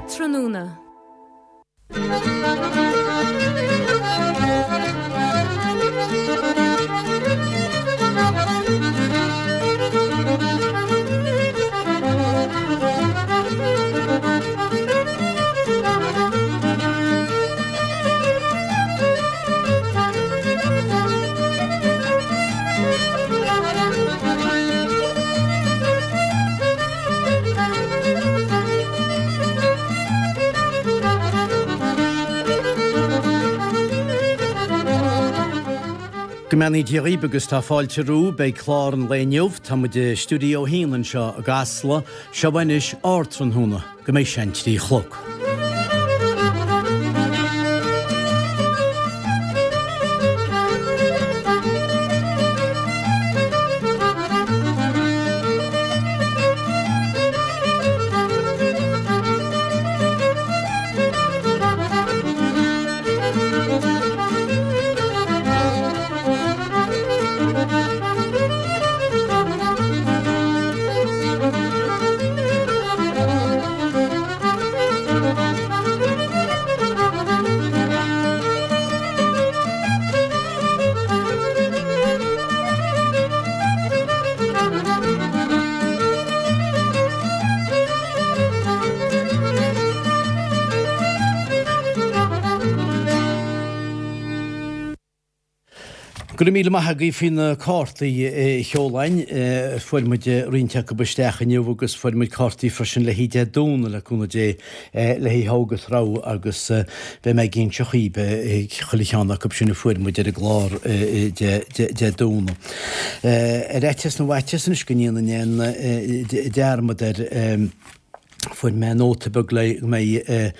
Ardtráthnóna. Go mbeannaí Dia dhaoibh agus tá fáilte romhaibh. Beidh clár an lae inniu, tá muid i Stiúideo 1 anseo i gCasla, seo anois Ardtráthnóna, go mbeidh sé an 3 chlog. Go raibh míle maith agaibh faoi na cártaí a sheolann. Fuair muid roinnt acu isteach inniu agus fuair muid cártaí freisin le haghaidh Dé Domhnaigh le cúnamh Dé le haghaidh Thogh agus Rogha agus beidh mé ag inse dhaoibh chuile cheann acu sin a fuair muid ar an gclár Dé Domhnaigh. Ar fhaitíos na bhfaitíos anois go ndéanfainn aon dearmad air, Fuair mé nóta beag le go mbeidh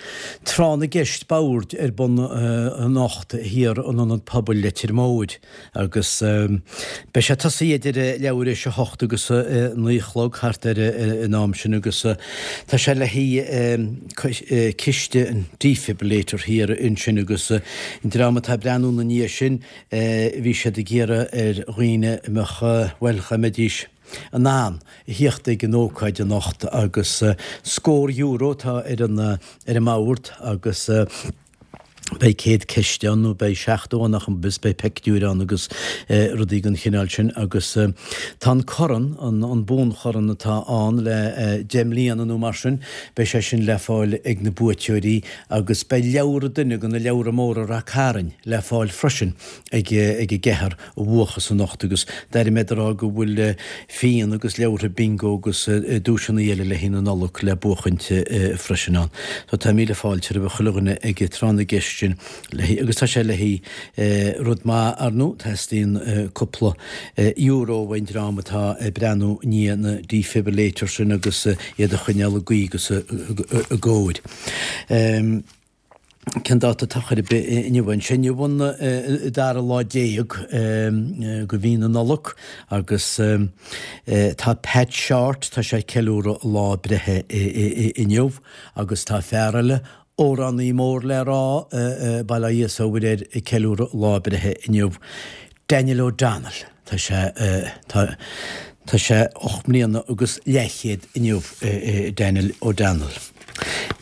tráth na gceist boird ar bun anocht thiar in Ionad Pobail Leitir Móir agus beidh sé tosaithe idir leathuair éis a hocht agus a naoi a chlog thart ar an am sin agus tá sé le haghaidh ciste an defibrillator thiar ansin agus an dream atá ag breathnú ina ndiaidh sin bhí siad ag iarraidh ar dhaoine a mbeadh bhuel dá mbeidís in ann a thíocht ag an ócáid anocht agus scór euro atá ar an ar an mbord agus beidh 100 ceist ann nó beidh 70 ann ach agus beidh peictiúir ann agus rudaí den chineál sin agus tá an corn, an buanchorn atá ann le 10 mbliana nó mar sin, beidh sé sin le fáil ag na buaiteoirí agus beidh leabhar duine de na leabhra móra Rath Cairn le fáil freisin ag ag an gceathrar a bhuafas anocht agus d'airigh mé ag rá go bhfuil fíon agus leabhartha bingo agus duaiseanna eile le haghaidh na Nollag le buachaint freisin ann. So tá míle fáilte roimh chuile dhuine ag tráth na gceist sin le haghaidh agus tá sé le haghaidh rud maith ar ndóigh, teastaíonn cúpla euro ón dream atá ag breathnú i ndiaidh na defibrillators sin agus iad a choinneáil i gcaoi agus i gcóir. Cén dáta atá chor ar bith inniu? An sé inniu an dara lá déag de mhí na Nollag agus tá Pat Shortt, tá sé ag ceiliúradh a lá breithe inniu agus tá fear eile, amhránaí mór le rá, bail ó Dhia is ó Mhuire air, ag ceiliúradh a lá breithe inniu. Daniel O'Donnell, tá sé, tá, tá sé 8 mbliana agus leathchéad inniu, Daniel O'Donnell.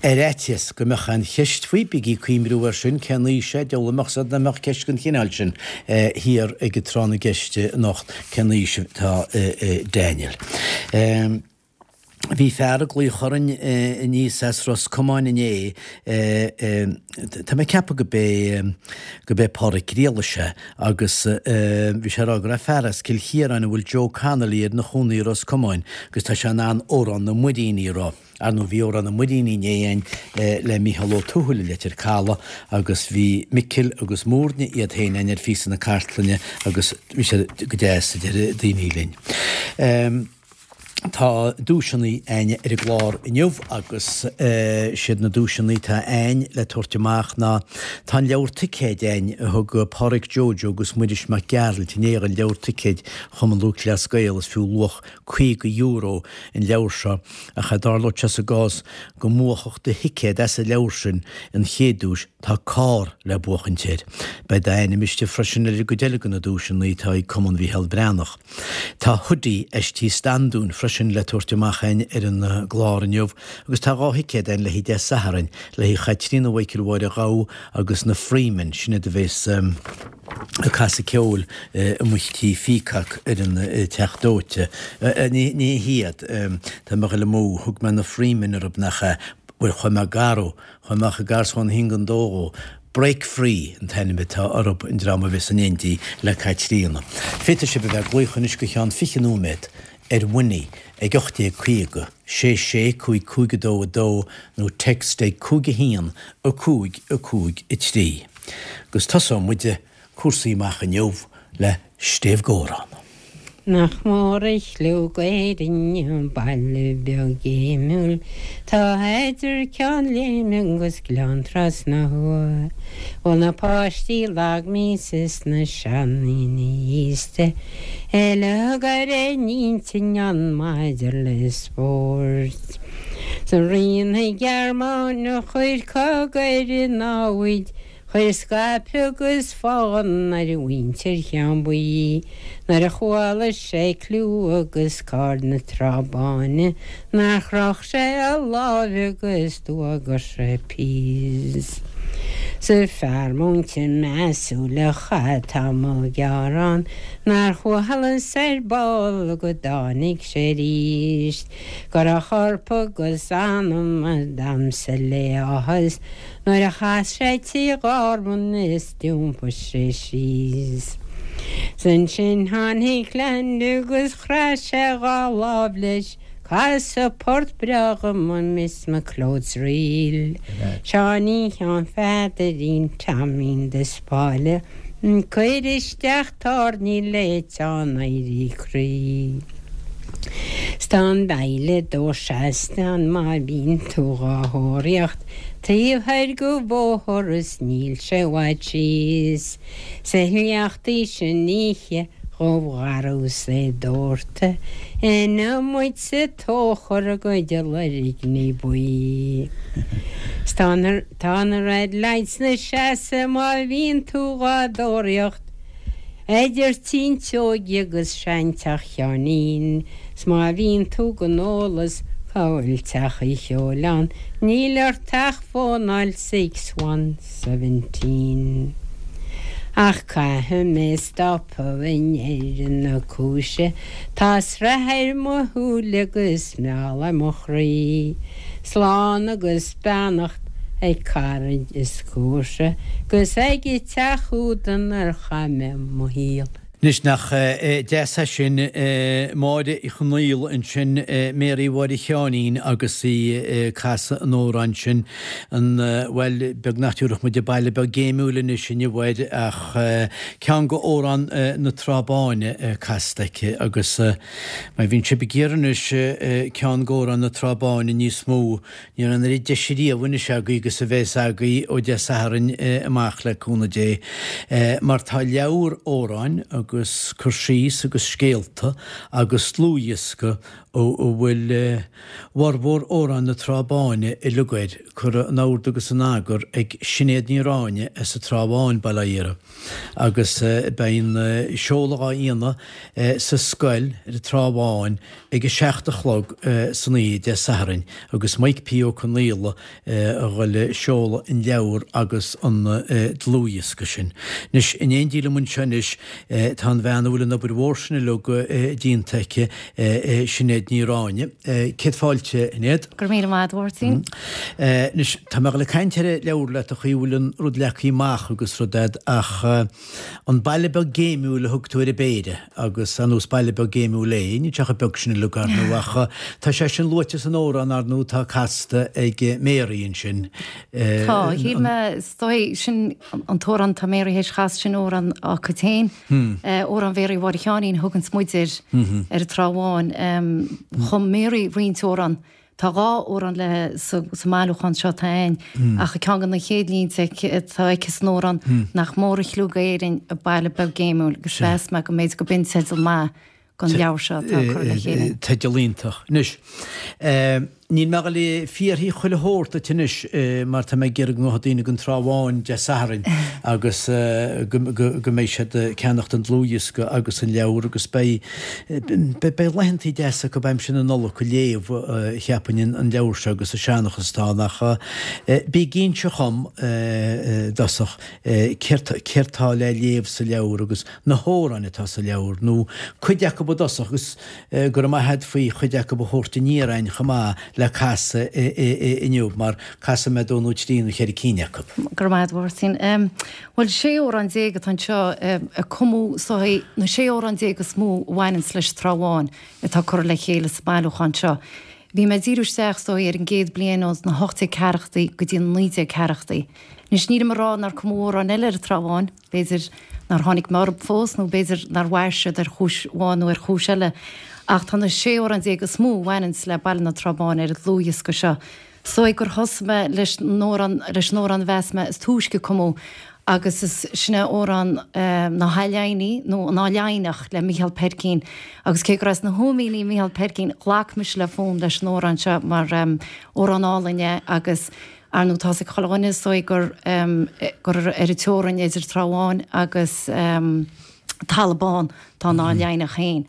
Ar fhaitíos go mbeadh aon cheist faoi, bígí ag cuimhniú air sin, cén aois é, deabhal a mbeadh 's nach mbeadh ceist den chineál sin thiar ag an tráth na gceist anocht, cén aois atá Daniel. Bhí fear ag glaoch orainn aníos as Ros Comáin inné, tá mé ag ceapadh go b'é, go b'é Pádraic Griallais é, agus bhí sé ag rá go raibh fear as Cill Chiaráin a bhfuil Joe Connolly air ina chónaí i Ros Comáin agus tá sé in ann Amhrán na Muiríní a rá. Ar ndóigh bhí Amhrán na Muiríní inné againn le Mícheál Ó Tuathail i Leitir Caladh agus bhí Micil agus Muirne iad féin againn ar phíosa na cartlainne agus bhí sé go deas a deir daoine linn. Tá duaiseanna a'ainn ar an gclár inniu agus siad na duaiseanna atá a'ainn le tabhairt amach ná tá an leabhar ticéid a'ainn a thug Pádraic Joe Joe agus Muiris Mac Gearailt inné an leabhar ticéid Chumann Lúthchleas Gael is fiú luach €50 an leabhar seo ach dá dtarlódh sé sa gcás go mbuafadh do thicéad as an leabhar sin an chéad duais tá carr le buachaint air. Beidh d'ainm istigh freisin ar an gcuid eile de na duaiseanna atá ag Cumann Mhícheál Breathnach. Tá hoodie as Tí Standún freisin. freisin le tabhairt amach againn ar an gclár inniu agus tá 2 thicéad againn le haghaidh Dé Sathairn, le haghaidh Chaitríona Mhichael Mháire Ghabha agus na Freemen, sin iad a bhéas ag casadh ceoil amuigh tí Pheacock ar an Teach Dóite. Ní hiad, tá mé ag dul amú, thug mé na Freemen oraibh nach ea? Bhuel, chuaigh mé garbh, chuaigh mé chomh gar is a chuaigh an 1-2 dhó. Break Free an t-ainm atá orthub, an dream a bheas in éindí le Caitríona. Féadfaidh sibh a bheith ag glaoch anois go cheann 20 nóiméad ar Winnie ag 1850 66 5 5 2 2 nó text ag 5 1 5 5 3. Agus tosóidh muid cúrsaí amach inniu le Stéibh Góran. Nach mór a chliú Éirinn, baile beag géimiúil, tá idir Ceann Léime agus Gleann Trasna Thuaidh. Bhfuil na páistí lag míosa is na seandaoine aosta uilig ar aon intinn ann maidir le spórt. 'S rí na Gearmáine a chuir cogadh ar an namhaid Chuir scaipeadh agus fonn ar mhuintir Cheann Buí nuair a chuala sé cliú agus cáil na Trá Báine nár chroch sé a láimh agus d'fhuagair sé píos. 'S fear múinte measúil a chaith tamall gearr ann nár chualas ar ball go dtáinig sé arís go raibh corp agus anam ag damhsa le áthas Nuair a chas sé Tigh Ghorman is d'iompaigh sé síos. 'S ansin tháinig Land agus chraith sé dhá lámh leis, Casadh port breá dhom a Miss McLeod's Reel. Seáinín Sheáin Pheadairín Teaimín de Spáille, Cuir isteach tairní le teann éirí croí. 'S tá an baile dó seasta ann má bhíonn tú dhá thóraíocht taobh thoir go bhóthar is níl sé i bhfad síos. 'S a shneachtaí sin oíche dhubh gharbh 's é dórtadh ina muid sa tóchar a gcuid loirgní buí. 'S tá na tá na red lights 'na seasamh má bhíonn tú dhá dtóraíocht Idir Tí an tSeoighe agus seanteach Sheáinín, 's má bhíonn tú gan eolas cá bhfuil teach an cheoil ann, níl ort ach fónáil 6117. Ach caithfidh mé stopadh i ndeireadh na cúise, tá sraith ar mo shúile agus meall ar mo chroí. Slán agus beannacht ag caraid is comharsa 'gus ag an teach úd inar chaith mé mo shaol. Anois nach deas é sin, Máire Uí Chonaola ansin, Mary Mháire Sheáinín agus í ag casadh an amhráin sin, an, bhuel, beag nach dtabharfadh muid an Baile Beag Géimiúil anois inniu air ach ceann go amhrán na Trá Báine casta aici agus má bhíonn sibh ag iarraidh anois ceann go amhrán na Trá Báine níos mó, Ní raibh an oiread deise riamh anois agaibh agus a bheas agaibh ó Dé Sathairn amach le cúnamh Dé, mar tá leabhar amhráin agus cur síos agus scéalta agus dlúthdhiosca a bhfuil formhór amhráin na Trá Báine uilig air curtha in ord agus in eagar ag Sinéad Ní Ráinne as an Trá Bháin, Baile Átha Iara, agus beidh an seoladh á dhéanamh sa scoil ar an Trá Bháin ag a 7 a chlog san oíche Dé Sathairn agus Mike P. Ó Conaola a dhul ag seoladh an leabhar agus an dlúthdhiosca sin. Anois, in éindí liom anseo anois tá an bhean a bhfuil an obair mhór sin uilig déanta aici, Sinéad Ní Ráinne. Céad fáilte, a Shinéad. Go raibh míle maith agat, a Mháirtín. Anois, tá mé ag dul ag caint ar an leabhar leat, an chaoi a bhfuil an rud leagtha amach agus rud a'd ach an baile beag géimiúil a thug tú ar an bpéire agus ar ndóigh is baile beag géimiúil é, níl sé chomh beag sin uilig ar ndóigh ach tá sé sin luaite san amhrán ar ndóigh atá casta ag Mary ansin. Tá, shíl mé, is dóigh, sin an t-amhrán atá Mary théis a chasadh, sin amhrán á cuid féin, amhrán Mhéaraí Mháire Sheáinín a thuganns muid air ar an Trá Bháin. Chum Mary roinnt amhrán Tá dhá amhrán léi sa mbailiúchán seo atá againn, ach ceann de na chéad línte atá aici san amhrán, Nach mór a chliú d'Éirinn, an baile beag géimiúil, agus mheas mé go mb'fhéidir go b'in teideal maith. gon leabhar seo atá curtha le chéile. Teideal iontach. Anois, níl mé ag dul ag fiafraí chuile shórt duit anois mar tá mé ag iarraidh go ngabhfaidh daoine gon Trá Bháin Dé Sathairn agus go mbeidh siad ag ceannacht an dlúthdhiosca agus an leabhar agus beidh beidh laethantaí deasa acu aimsir na Nollag ag léamh cheapfainn an leabhar seo agus an seanchas atá ann ach bí ag inse dhom i dtosach céard céard tá le léamh sa leabhar agus na hamhráin atá sa leabhar, nó cuid acu i dtosach, agus go raibh maith agat faoi chuid acu a thabhairt aniar a'inn chomh maith le casadh inniu, mar casfaidh mé dó nó trí nó cheithre cinn acu. Go raibh maith agat, a Mháirtín. Bhuel, 16 amhrán atá anseo a cumadh, is dóigh, na 16 amhrán is mó a bhaineanns leis an Trá Bháin atá curtha le chéile sa mbailiúchán seo. Bhí mé ag díriú isteach, is dóigh, ar an gcéad bliain ó na 1840idí go dtí na 1940idí. Anois, nílim ag rá nár cumadh amhráin eile ar an Trá Bháin, B'fhéidir nár tháinig mé orthu fós nó b'fhéidir nár mhair siad ar chúis amháin nó ar chúis eile ach tá na 16 amhrán is mó a bhaineanns le baile na Trá Báine ar an dlúthdhiosca seo. Is dóigh gur thosaigh mé leis an amhrán leis an amhrán a mheas mé is túisce a cumadh agus is sin é amhrán na hAth Leimhní nó an Áth Laighneach le Micheál Peircín agus cé gur as na hÓimíní Micheál Peircín ghlac mise le fonn leis an amhrán seo mar amhrán álainn é agus Ar ndóigh tá's ag chuile dhuine is dóigh gur gur ar an teorainn idir Trá Bháin agus Talamh Bán tá an Áth Laighneach féin.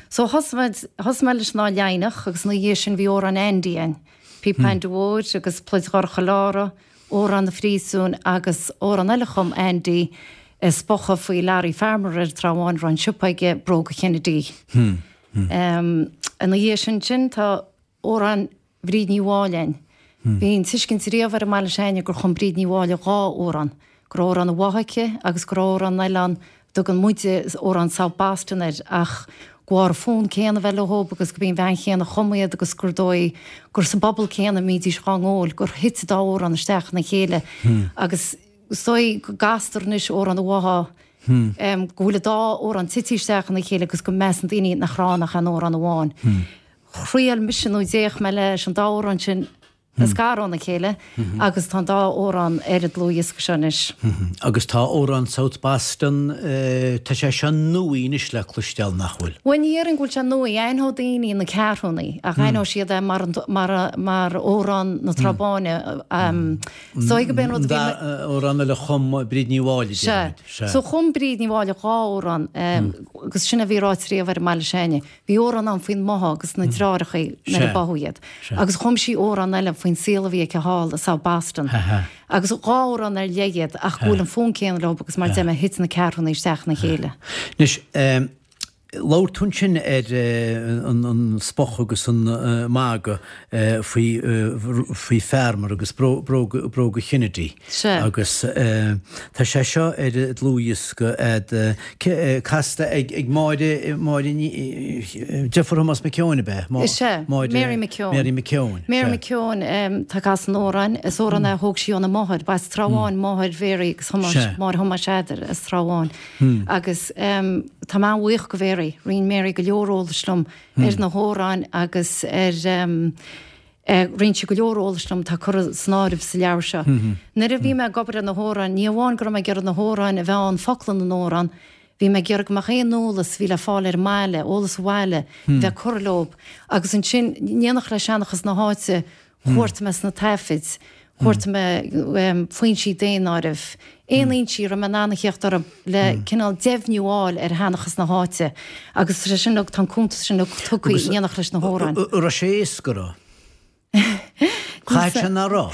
So thosaigh muid, thosaigh mé leis an Áth Laighneach agus ina dhiaidh sin bhí amhrán Andy ann, Píopa Ainde Mhóir agus Pluid Dhorcha Lára, Amhrán na Phríosúin agus amhrán eile a chum Andy, spochadh faoi Larry Farmer ar an Trá Bháin a raibh an siopa aige, Bróga Kennedy. Ina dhiaidh sin sin tá amhrán Bhríd Ní Mháille ann. Bhí an tuiscint riamh ar an mbaile s'againne gur chum Bríd Ní Mháille dhá amhrán, go raibh amhrán an Bhátha aici agus go raibh amhrán eile ann a dtugann muide amhrán South Boston air ach go bharr an fonn céanna a bheith leob agus go b'í an bhean chéanna a chum iad agus gur dóigh gur sa bpobal céanna a mbídís dhá ngabháil gur thit an dá amhrán isteach ina chéile agus is dóigh go gcastar anois amhrán an Bhátha go bhfuil an dá amhrán tite isteach ina chéile agus go measann daoine nach raibh ann ach aon amhrán amháin. Thriail mise nó d'fhéach mé leis an dá amhrán sin a scaradh óna chéile agus tá an dá amhrán ar an dlúthdhiosca seo anois. Agus tá amhrán South Boston, tá sé seo nuaí anois le cloisteáil, nach bhfuil? Bhuel, ní dhéarfainn go bhfuil sé nuaí. Aithneoidh daoine na Ceathrúnaí ach aithneoidh siad é mar mar amhrán na Trá Báine. Is dóigh go b'é an rud a bhí. Amhrán eile a chum Bríd Ní Mháille, déarfaimid. Sea. So chum Bríd Ní Mháille dhá amhrán agus sin a bhí ráite riamh ar an mbaile s'againne. Bhí amhrán ann faoin mBotha agus na deartháireachaí nuair a báthadh iad. Agus chum sí amhrán eile faoin saol a bhí aici thall i South Boston. Agus dhá amhrán ar leith iad ach go bhfuil an fonn céanna leo agus mar a deir mé thit na ceathrúnaí isteach ina chéile. Anois, labhair tú ansin ar an spochadh agus an magadh faoi faoi Farmer agus bróga Kennedy. Agus tá sé seo ar an dlúthdhiosca a'd casta ag Máire, Máire Ní, deirfiúr Thomas McKeown ab ea? Is ea, Mary McKeown. Mary McKeown. Mary McKeown tá ag casadh an amhráin. Is amhrán é a thóg sí óna máthair. Ba as Trá Bháin máthair Mhary agus Thomáis, máthair Thomáis Pheadair as Trá Bháin. Agus tá mé an-bhuíoch go Mhary. Roinn Mary go leor eolais liom ar na hamhráin agus ar Roinn sí go leor eolais liom atá curtha san áireamh sa leabhar seo. Nuair a bhí mé ag obair ar na hamhráin, ní amháin go raibh mé ag iarraidh na hamhráin a bheith ann, focla na n-amhrán, bhí mé ag iarraidh go mbeadh aon eolas a bhí le fáil ar an mbaile, eolas an bhaile, bheith curtha leo. Agus ansin, in éineacht le seanchas na háite, chuartaigh mé sna taifid, chuartaigh mé foinsí daonáirimh, aon fhoinsí a raibh mé in ann a theacht orthu le cineál deimhniú a fháil ar sheanchas na háite agus tá sé sin, tá an cuntas sin tugtha in éineacht leis na hamhráin. An raibh sé éasca, an raibh? Caithfidh sé nach raibh.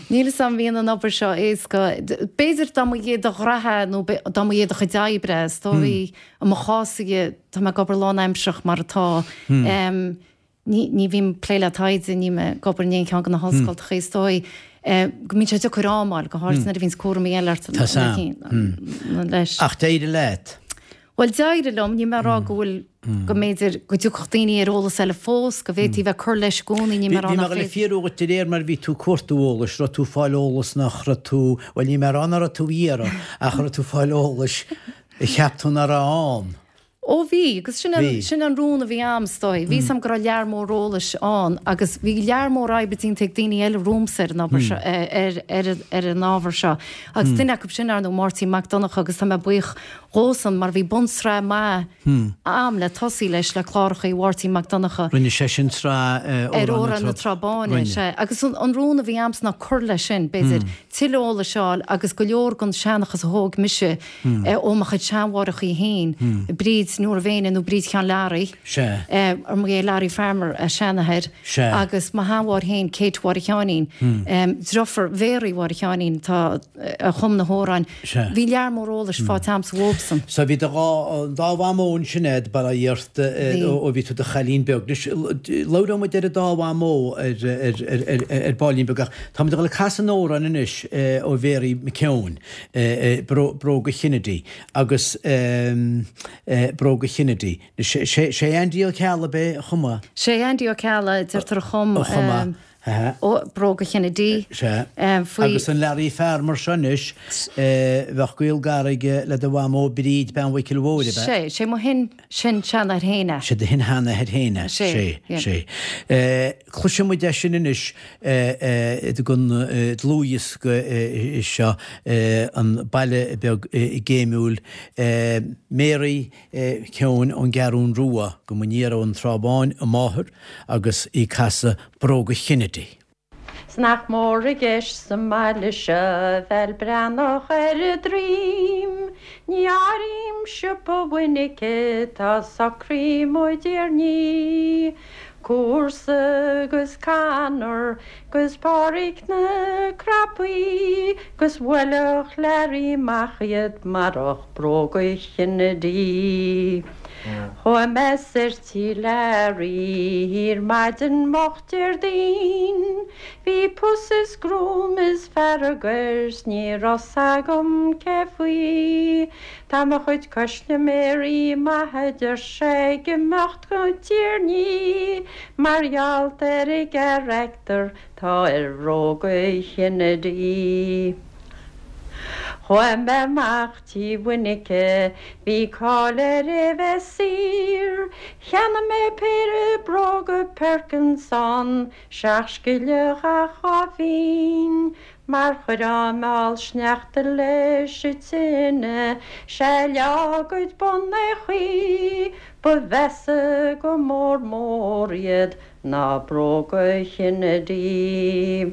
Níl 'fhios a'm an mbíonn an obair seo éasca. B'fhéidir dá mba é do ghraithe nó dá mba é do chuid oibre, is dóigh i mo chás-sa tá mé ag obair lánaimsearach mar atá. Ní bhím ag plé le taighde, nílim ag obair in aon cheann de na hollscoltacha, is dóigh go mbíonn sé deacair am a fháil, go háirithe nuair a bhíonns cúraimí eile ort leis. Ach d'éirigh leat? Bhuel, d'éirigh liom, níl mé ag rá go bhfuil, go mb'fhéidir go dtiocfadh daoine ar eolas eile fós, go bhféadfaí bheith ag cur leis i gcónaí, níl mé ag rá nach féidir. Bhí mé ag dul a fiafraí dhuit de réir mar a bhí tú ag cuartú eolais, raibh tú ag fáil eolas nach raibh tú, bhuel níl mé ag rá nach raibh tú a iarraidh, ach raibh tú ag fáil eolais a cheap tú nach raibh ann. Ó bhí, agus sin an, sin an rún a bhí a'm, is dóigh. Bhí 'fhios a'm go raibh lear mór eolais ann agus bhí lear mór oibre déanta ag daoine eile romhamsa ar an obair seo, ar, ar, ar an ábhar seo. Agus duine acu sin, ar ndóigh, Máirtín Mac Donncha agus tá mé buíoch dhósan mar bhí bunsraith maith a'm le tosaí leis, le clárachaí Mháirtín Mac Donncha. Rinne seisean sraith ar Amhrán na Trá Báine, sea. Agus an rún a bhí a'msa ná cur leis sin, b'fhéidir, tuilleadh eolais a fháil agus go leor den seanchas a thóg mise, ó mo chuid seanmháithreachaí féin, Bríd Nóra Mhéine nó Bríd Sheáin Learaí, ar mba é Larry Farmer a seanathair, agus mo sheanmháthair féin, Kate Mháire Sheáinín, driofúr Mhéaraí Mháire Sheáinín atá, a chum na hamhráin. Bhí lear mór eolais faighte a'msa uathubsan. So bhí do dhá, dá mhamó ansin a'd, bail ó Dhia ort, ó bhí tú i do chailín beag. Anois, labhróidh muid ar an dá mhamó ar, ar, ar, ar baillín beag ach táimid ag dul ag casadh an amhráin anois ó Mhéaraí McKeown. Bróga Kennedy agus Bróga Kennedy. Sé Andy Ó Ceallaigh ab é a chum é? Sé Andy Ó Ceallaigh, deirtear a chum a chum é. Bróga Kennedy. Sea. Agus an Larry Farmer seo anois, bheadh gaol gar aige le do mhamó Bríd, bean Mhicil Mhóir, ab ea? Sé, sé mo shin, sin seanathair féin é. Sé do shin-sheanathair féin é. Sé, sé. Cloisfidh muid é sin anois den dlúthdhiosca seo, An Baile Beag Géimiúil, Mary McKeown ón gCeathrún Rua, go mba ón Trá Bháin a máthair agus í ag casadh Bróga Kennedy. 'S nach mór i gceist sa mbaile seo bheil breathnach ar a droim. Ní áirím siopa Mhuinice tá socraí mo dtiarnaí. Cúrsa 'gus Conor 'gus Páraic na Crapaí 'gus bhuailfeadh Learaí amach iad marach bróga Kennedy. Chuaigh mé soir tí Learaí ar maidin moch Déardaoin. Bhí pus is gruaim is fearg air 's ní raibh 's agam cé faoi. Tá mo chuid coisliméirí maith a deir sé ag imeacht go Tír Ní mar gheall ar an gcarachtar tá ar bhróga Kennedy. Chuaigh mé amach tí Mhuinice, bhí cáil air é bheith saor. Cheannaigh mé péire bróga Perkins ann, seacht scilleach ach dhá phínn. Mar chuirfeá meall sneachta leis an tine, sea leá a gcuid bun é chaoi, ba mheasa go mór mór iad ná bróga Kennedy.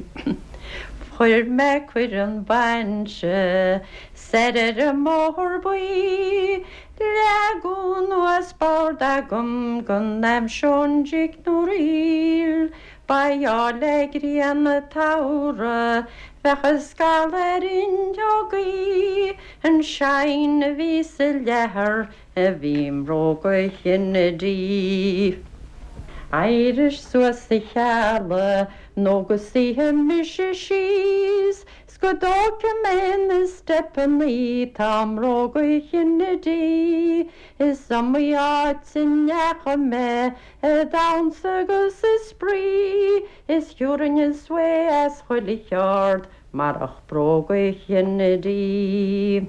Fuair mé cuireadh 'un bainse soir ar an mBóthar Buí. Leagadh anuas bord agam go n-aimseoinn jig nó ríl. Ba gheall le grian an tsamhraidh bheadh a scalladh ar fhuinneogaí. An shine a bhí sa leathar a bhí i mbróga Kennedy. Éirigh suas a Cheallaigh nó go suífidh mise síos 's go dtógfaidh mé na steipeannaí tá i mbróga Kennedy. Is iomaí áit a ndeachaigh mé a damhsa agus a spraoi is thiúrfainn an sway as chuile cheard Marach bróga Kennedy.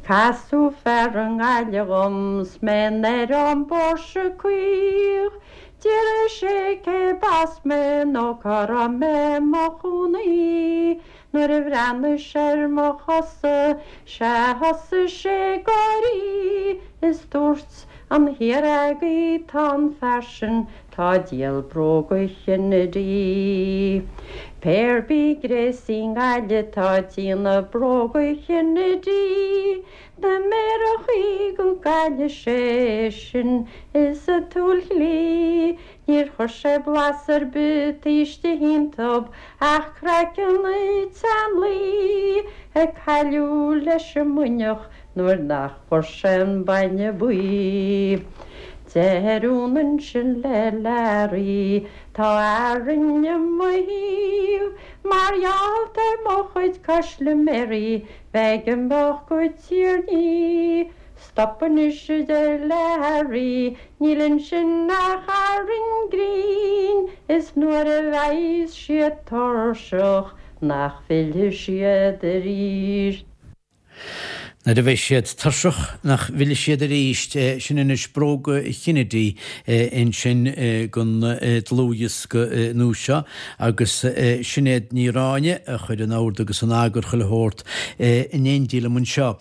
Casadh fear i nGaillimh dhom 's mé ar an bpóirse caoch. D'fhiafraigh sé cé b'as mé nó cá raibh mé mo chónaí. Nuair a bhreathnaigh sé ar mo chosa sea thosaigh sé ag gáirí is dúirt an thiar agaibh tá an fear sin Tá ag díol bróga Kennedy. Pé ar bith gréasaí i nGaillimh tá ag déanamh bróga Kennedy. Na méarachaí go gcailleadh sé sin is a tsúil chlí. Níor chuir sé blas ar bith taobh istigh iontub ach craiceann an tseanlaoi a cailleadh leis an mbuinneach nuair nach bhfuair sé an bainne buí. Deir Úna ansin le Learaí, Tá Árainn i mo thaobh, mar gheall ar mo chuid coisliméirí bheith ag imeacht go Tír Ní. Stop anois, a deir Learaí, níl ansin ach arraing grinn, is nuair a bheidhs siad tuirseach nach bhfillfidh siad arís. Nuair a bheidh siad tuirseach nach bhfillfidh siad arís, sin anois Bróga Kennedy ansin don dlúthdhiosca nua seo agus Sinéad Ní Ráinne a chuir in ord agus in eagar chuile shórt in éindí liom anseo.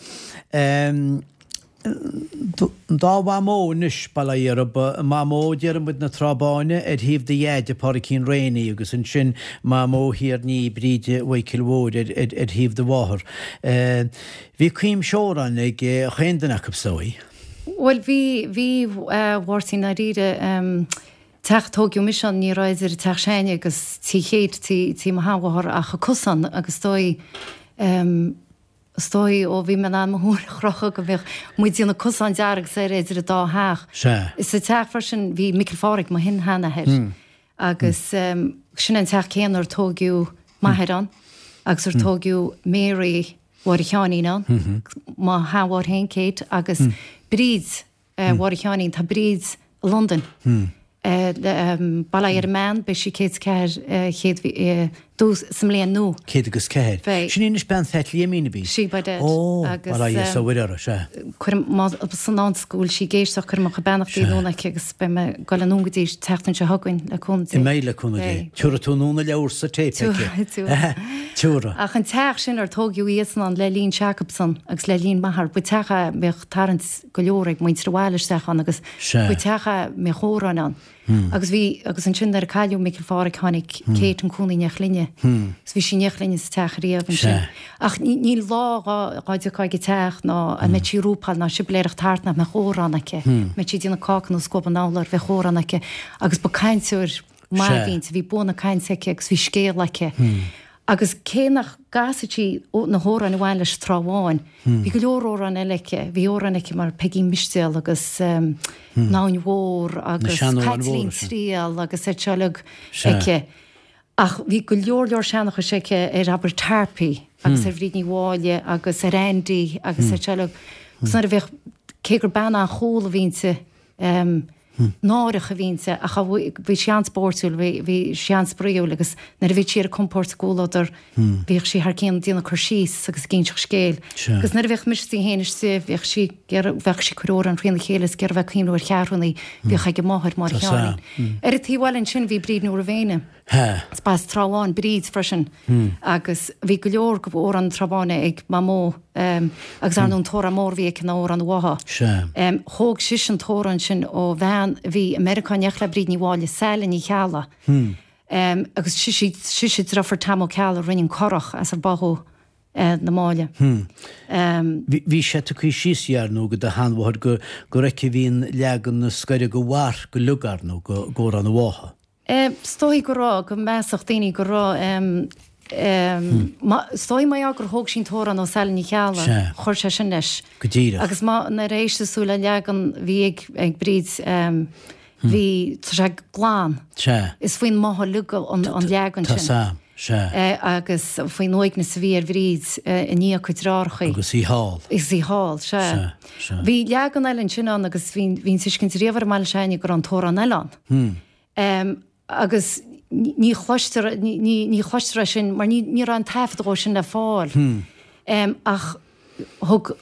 An dá mhamó anois, bail ó Dhia oraibh, Mamó Diarmuid na Trá Báine ar thaobh do dhaid, a Phádraicín Rainey, agus ansin Mamó Thiar Ní, Bríde Mhichíl Mhóir ar thaobh do mháthar. Bhí cuimse amhrán ag chaon duine acu, is dóigh. Bhuel, bhí, bhí, a Mháirtín, ndáiríre. Teach a tóigeadh mise ann, ní raibh idir teach s'againne agus tí Kate, tí, tí mo sheanmháthar ach an cosán agus is dóigh, Is dóigh ó bhí mé in ann mo thóin a chrochadh go mbíodh muid ag déanamh cosán dearg soir idir an dá theach. Sea. Sa teach freisin bhí Micil Phádraig, mo shin-sheanathair, agus sin an teach céanna ar tóigeadh m'athair ann agus ar tóigeadh Mary Mháire Sheáinín ann, mo sheanmháthair féin, Kate, agus Bríd Mháire Sheáinín, tá Bríd i Londain. Bail ó Dhia ar an mbean, beidh sí 104 chéad dtús sa mbliain nua. 104. Beidh. Sin í anois bean Phat Liaimín, ab í? Sí, by dad. Ó, bail ó Dhia is ó Mhuire uirthi, sea. Cuirim, más san ann go bhfuil sí ag éisteacht, cuirim mo chuid beannachtaí anonn aici agus beidh mé ag goil anonn go dtí an tseachtain seo chugainn le cúnamh Dé. An mbeidh le cúnamh Dé. Beidh. Tiúrfaidh tú anonn a leabhar sa téip aici. Tiúrfaidh, tiúrfaidh. Tiúrfaidh. Ach an teach sin ar tóigeadh iadsan ann le linn Jacobson agus le linn m'athar, ba teach é a mbeadh tarraingt go leor ag muintir an bhaile isteach ann agus ba teach é a mbeadh amhráin ann. Agus bhí, agus ansin nuair a cailleadh Micil Phádhraic tháinig Kate chun cónaí in éineacht linne. Agus bhí sí in éineacht linne sa teach riamh ansin. Ach níl lá dhá dtiocfá ag an teach ná a mbeadh sí ag rúpáil ná sibiléireacht thart nach mbeadh amhrán aici. Mbeadh sí ag déanamh cáca nó scuab an urláir bheadh amhrán aici agus ba cainteoir maith a bhí inti, bhí bua na cainte aici agus bhí scéal aici. Agus cé nach gcasadh sí na hamhráin a bhain leis an Trá Bháin, bhí go leor amhráin eile aici. Bhí amhráin aici mar Peigín Mistéal agus An Abhainn Mhór agus Caitlín Triail agus iad seo uilig aici. Ach bhí go leor leor seanchais aici ar abair Tarpey agus ar Bhríd Ní Mháille agus ar Andy agus iad seo uilig. Agus nuair a bhíodh, cé gur bean an-chúl a bhí inti, náireach a bhí inti ach bhí sí an-spóirtiúil, bhí sí an-spraíúil agus nuair a bhí sí ar a compord sa gcomhluadar bhíodh sí thar cionn ag déanamh cur síos agus ag inseacht scéil. Agus nuair a bhíodh mise is í féin istigh bhíodh sí ag iarraidh, bheadh sí ag cur amhrán thrína chéile is ag iarraidh bheith ag cuimhniú ar cheathrúnaí a bhíodh ag a máthair, Máire Sheáinín. Ar an taobh eile ansin bhí Bríd Ní Mhuirmhéine. Is b'as Trá Bháin Bríd freisin agus bhí go leor de amhráin na Trá Báine ag Mamó agus ar ndóigh an t-amhrán mór a bhí aici ná Amhrán an Bhátha. Thóg sise an t-amhrán sin ó bhean a bhí i Meiriceá in éineacht le Bríd Ní Mháille, Saile Ní Cheallaigh agus sise sise deirfiúr Tom Ó Ceallaigh a rinne an curach as ar báthadh na Máille. Bhí sé tugtha síos ar ndóigh ag do sheanmháthair go gur aici a bhí an leagan is gaire do mharc uilig ar ndóigh d'Amhrán an Bhátha. Is dóigh go raibh, go measfadh daoine go raibh, is dóigh mar gheall gur thóg sí an t-amhrán ó Saile Ní Cheallaigh, chuir sé sin leis. Go díreach. Agus má, nuair a éisteas tú le leagan bhí ag, ag Bríd, bhí, tá sé glan. Sea. Is faoin mbáthadh uilig an, an leagan sin. Tá 's a'm, sea. Agus faoin uaigneas a bhí ar Bhríd i ndiaidh a cuid deartháireachaí. Agus í thall. Agus í thall, sea. Sea, sea. Bhí leagan eile ansin ann agus bhí, bhí an tuiscint riamh ar an mbaile s'againne go raibh an t-amhrán eile ann. Agus ní chloistear, ní chloistear é sin mar ní raibh an taifead dhó sin le fáil. Ach thug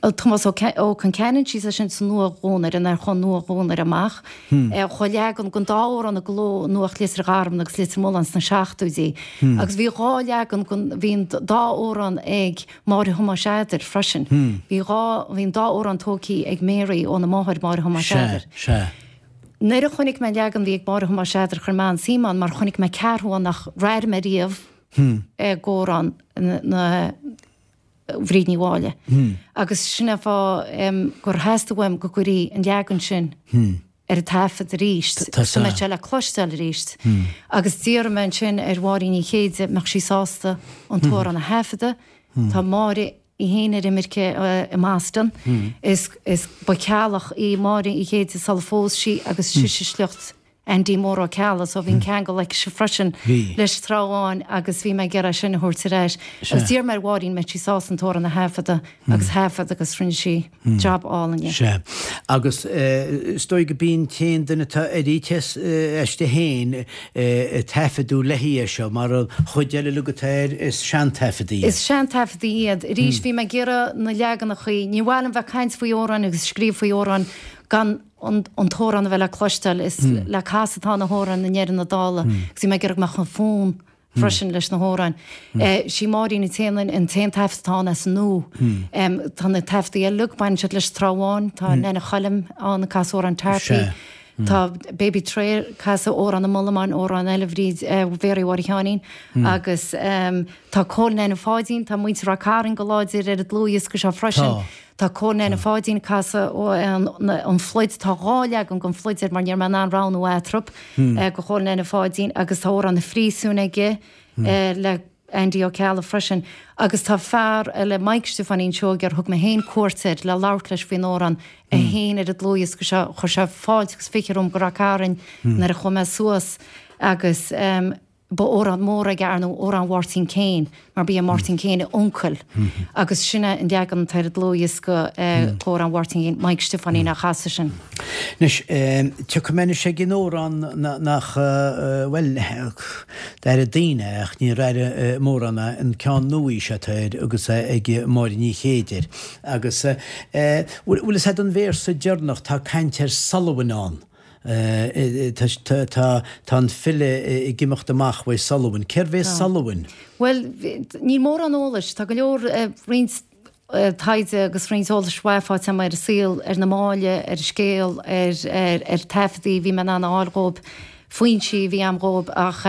Tomás Ó Conceanainn síos é sin sa Nua-Dhuanaire, nuair a chuaigh an Nua-Dhuanaire amach. Chuaigh leagan den dá amhrán i gcló i Nuacht Leitir Gharbh agus Leitir Mealláin sna seachtóidí. Agus bhí dhá leagan den, bhí an dá amhrán ag Máire Thomáis Eadair freisin. Bhí dhá, bhí an dá amhrán tógthaí ag Mary óna máthair Máire Thomáis Eadair. Sea, sea. Nuair a chonaic mé an leagan a bhí ag Máire Thomáis Eadair chuir mé an-suim ann mar chonaic mé ceathrú ann nach raibh mé riamh i gcomhrán na Bhríd Ní Mháille. Agus sin é an fáth gur theastaigh uaim go gcuirfí an leagan sin ar an taifead arís, go mbeadh sé le cloisteáil arís. Agus d'iarr mé ansin ar Mháirín Ní Chéide mbeadh sí sásta an t-amhrán a thaifeadadh. Tá Máire í féin ar imirce i mBoston. Is, is ba Cheallach í Máire Uí Chéide sular phós sí agus sise sliocht. Andy Mór Ó Ceallaigh so bhí an ceangal aici freisin leis an Trá Bháin agus bhí mé ag iarraidh sin a thabhairt ar ais. Agus d'iarr mé ar Mháirín an mbeadh sí sásta an t-amhrán a thaifeadadh agus thaifead agus rinne sí jab álainn dhe. Sea. Agus is dóigh go b'í an t-aon duine atá airithe aisti féin ag taifeadadh léi é seo mar an chuid eile uilig atá air is seantaifeadaí iad. Is seantaifeadaí iad. Arís bhí mé ag iarraidh na leaganachaí, ní mhaith liom bheith ag caint faoi amhráin agus scríobh faoi amhráin gan an t-amhrán a bheith le cloisteáil. Is le casadh atá na hamhráin i ndeireadh na dála agus bhí mé ag iarraidh go mbeadh an fonn freisin leis na hamhráin. Sí Máirín an t-aon an t-aon taifead atá ann as an nua. Tá na taifeadaí eile uilig, baineann siad leis an Trá Bháin, tá Nana Choilm ann ag casadh amhrán Tarpey, tá Baby Trey ag casadh amhrán an Mhullamáin, amhrán eile Bhríd Mhéaraí Mháire Sheáinín agus tá Cóil Nana Pháidín, tá muintir Ráth Cairn go láidir ar an dlúthdhiosca seo freisin. Tá Cóil Nana Pháidín ag casadh an Phluid, tá 2 leagan den Phluid air mar ní raibh mé in ann roghnú eatarthu, do Chóil Nana Pháidín agus tá Amhrán an Phríosúin aige le Andy Ó Ceallaigh freisin. Agus tá fear eile, Mike Stiofáinín Seoige, ar thug mé féin cuairt air le labhairt leis faoin amhrán, é féin ar an dlúthdhiosca seo, chuir sé fáilte agus fiche romham go Ráth Cairn nuair a chuaigh mé suas agus. Ba amhrán mór aige ar ndóigh, amhrán Mháirtín Kane, mar ba é Máirtín Kane a uncail agus sin é an leagan atá ar an dlúthdhiosca d'amhrán Mháirtín Kane, Mike Stiofáinín á chasadh sin. Anois, tiocfaidh mé anois ag an amhrán nach, bhuel, d'airigh daoine é ach níor airigh mórán é, an ceann nua seo atá air agus é ag Máire Ní Chéide air. Agus, bhfuil fhios a'd an véarsa deireanach, tá caint ar Sullivan ann. Tá an file ag imeacht amach uaidh Sullivan. Cérbh é Sullivan? Bhuel, níl mórán eolais. Tá go leor, roinnt taighde agus roinnt eolais mhaith faighte agam ar an saol, ar an mbaile, ar an scéal, ar taifeadaí a bhí mé in ann a fháil dhóibh, foinsí a bhí agam dhóibh ach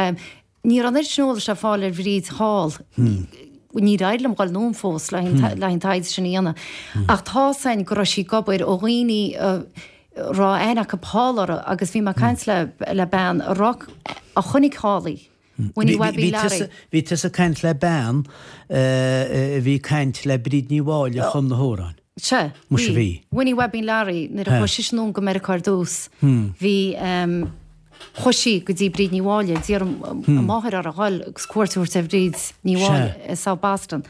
Ní raibh an oiread sin eolais le fáil ar Bhríd thall. Níor éirigh liom dhul anonn fós le haghaidh an taighde sin a dhéanamh. Ach tá's a'inn go raibh sí ag obair ó dhaoine a raibh aithne acu thall uirthi agus bhí mé ag caint le bean a raibh, a chonaic thall í. Winnie Webbie Larry. Bhí tusa ag caint le bean a bhí ag caint le Bríd Ní Mháille a chum na hamhráin. Sea, Muise bhí. Winnie Webbie Larry, nuair a chuaigh sise anonn go Meiriceá ar dtús, bhí, chuaigh sí go dtí Bríd Ní Mháille, d'iarr a máthair uirthi a dhul agus cuairt a thabhairt ar Bhríd Ní Mháille i South Boston.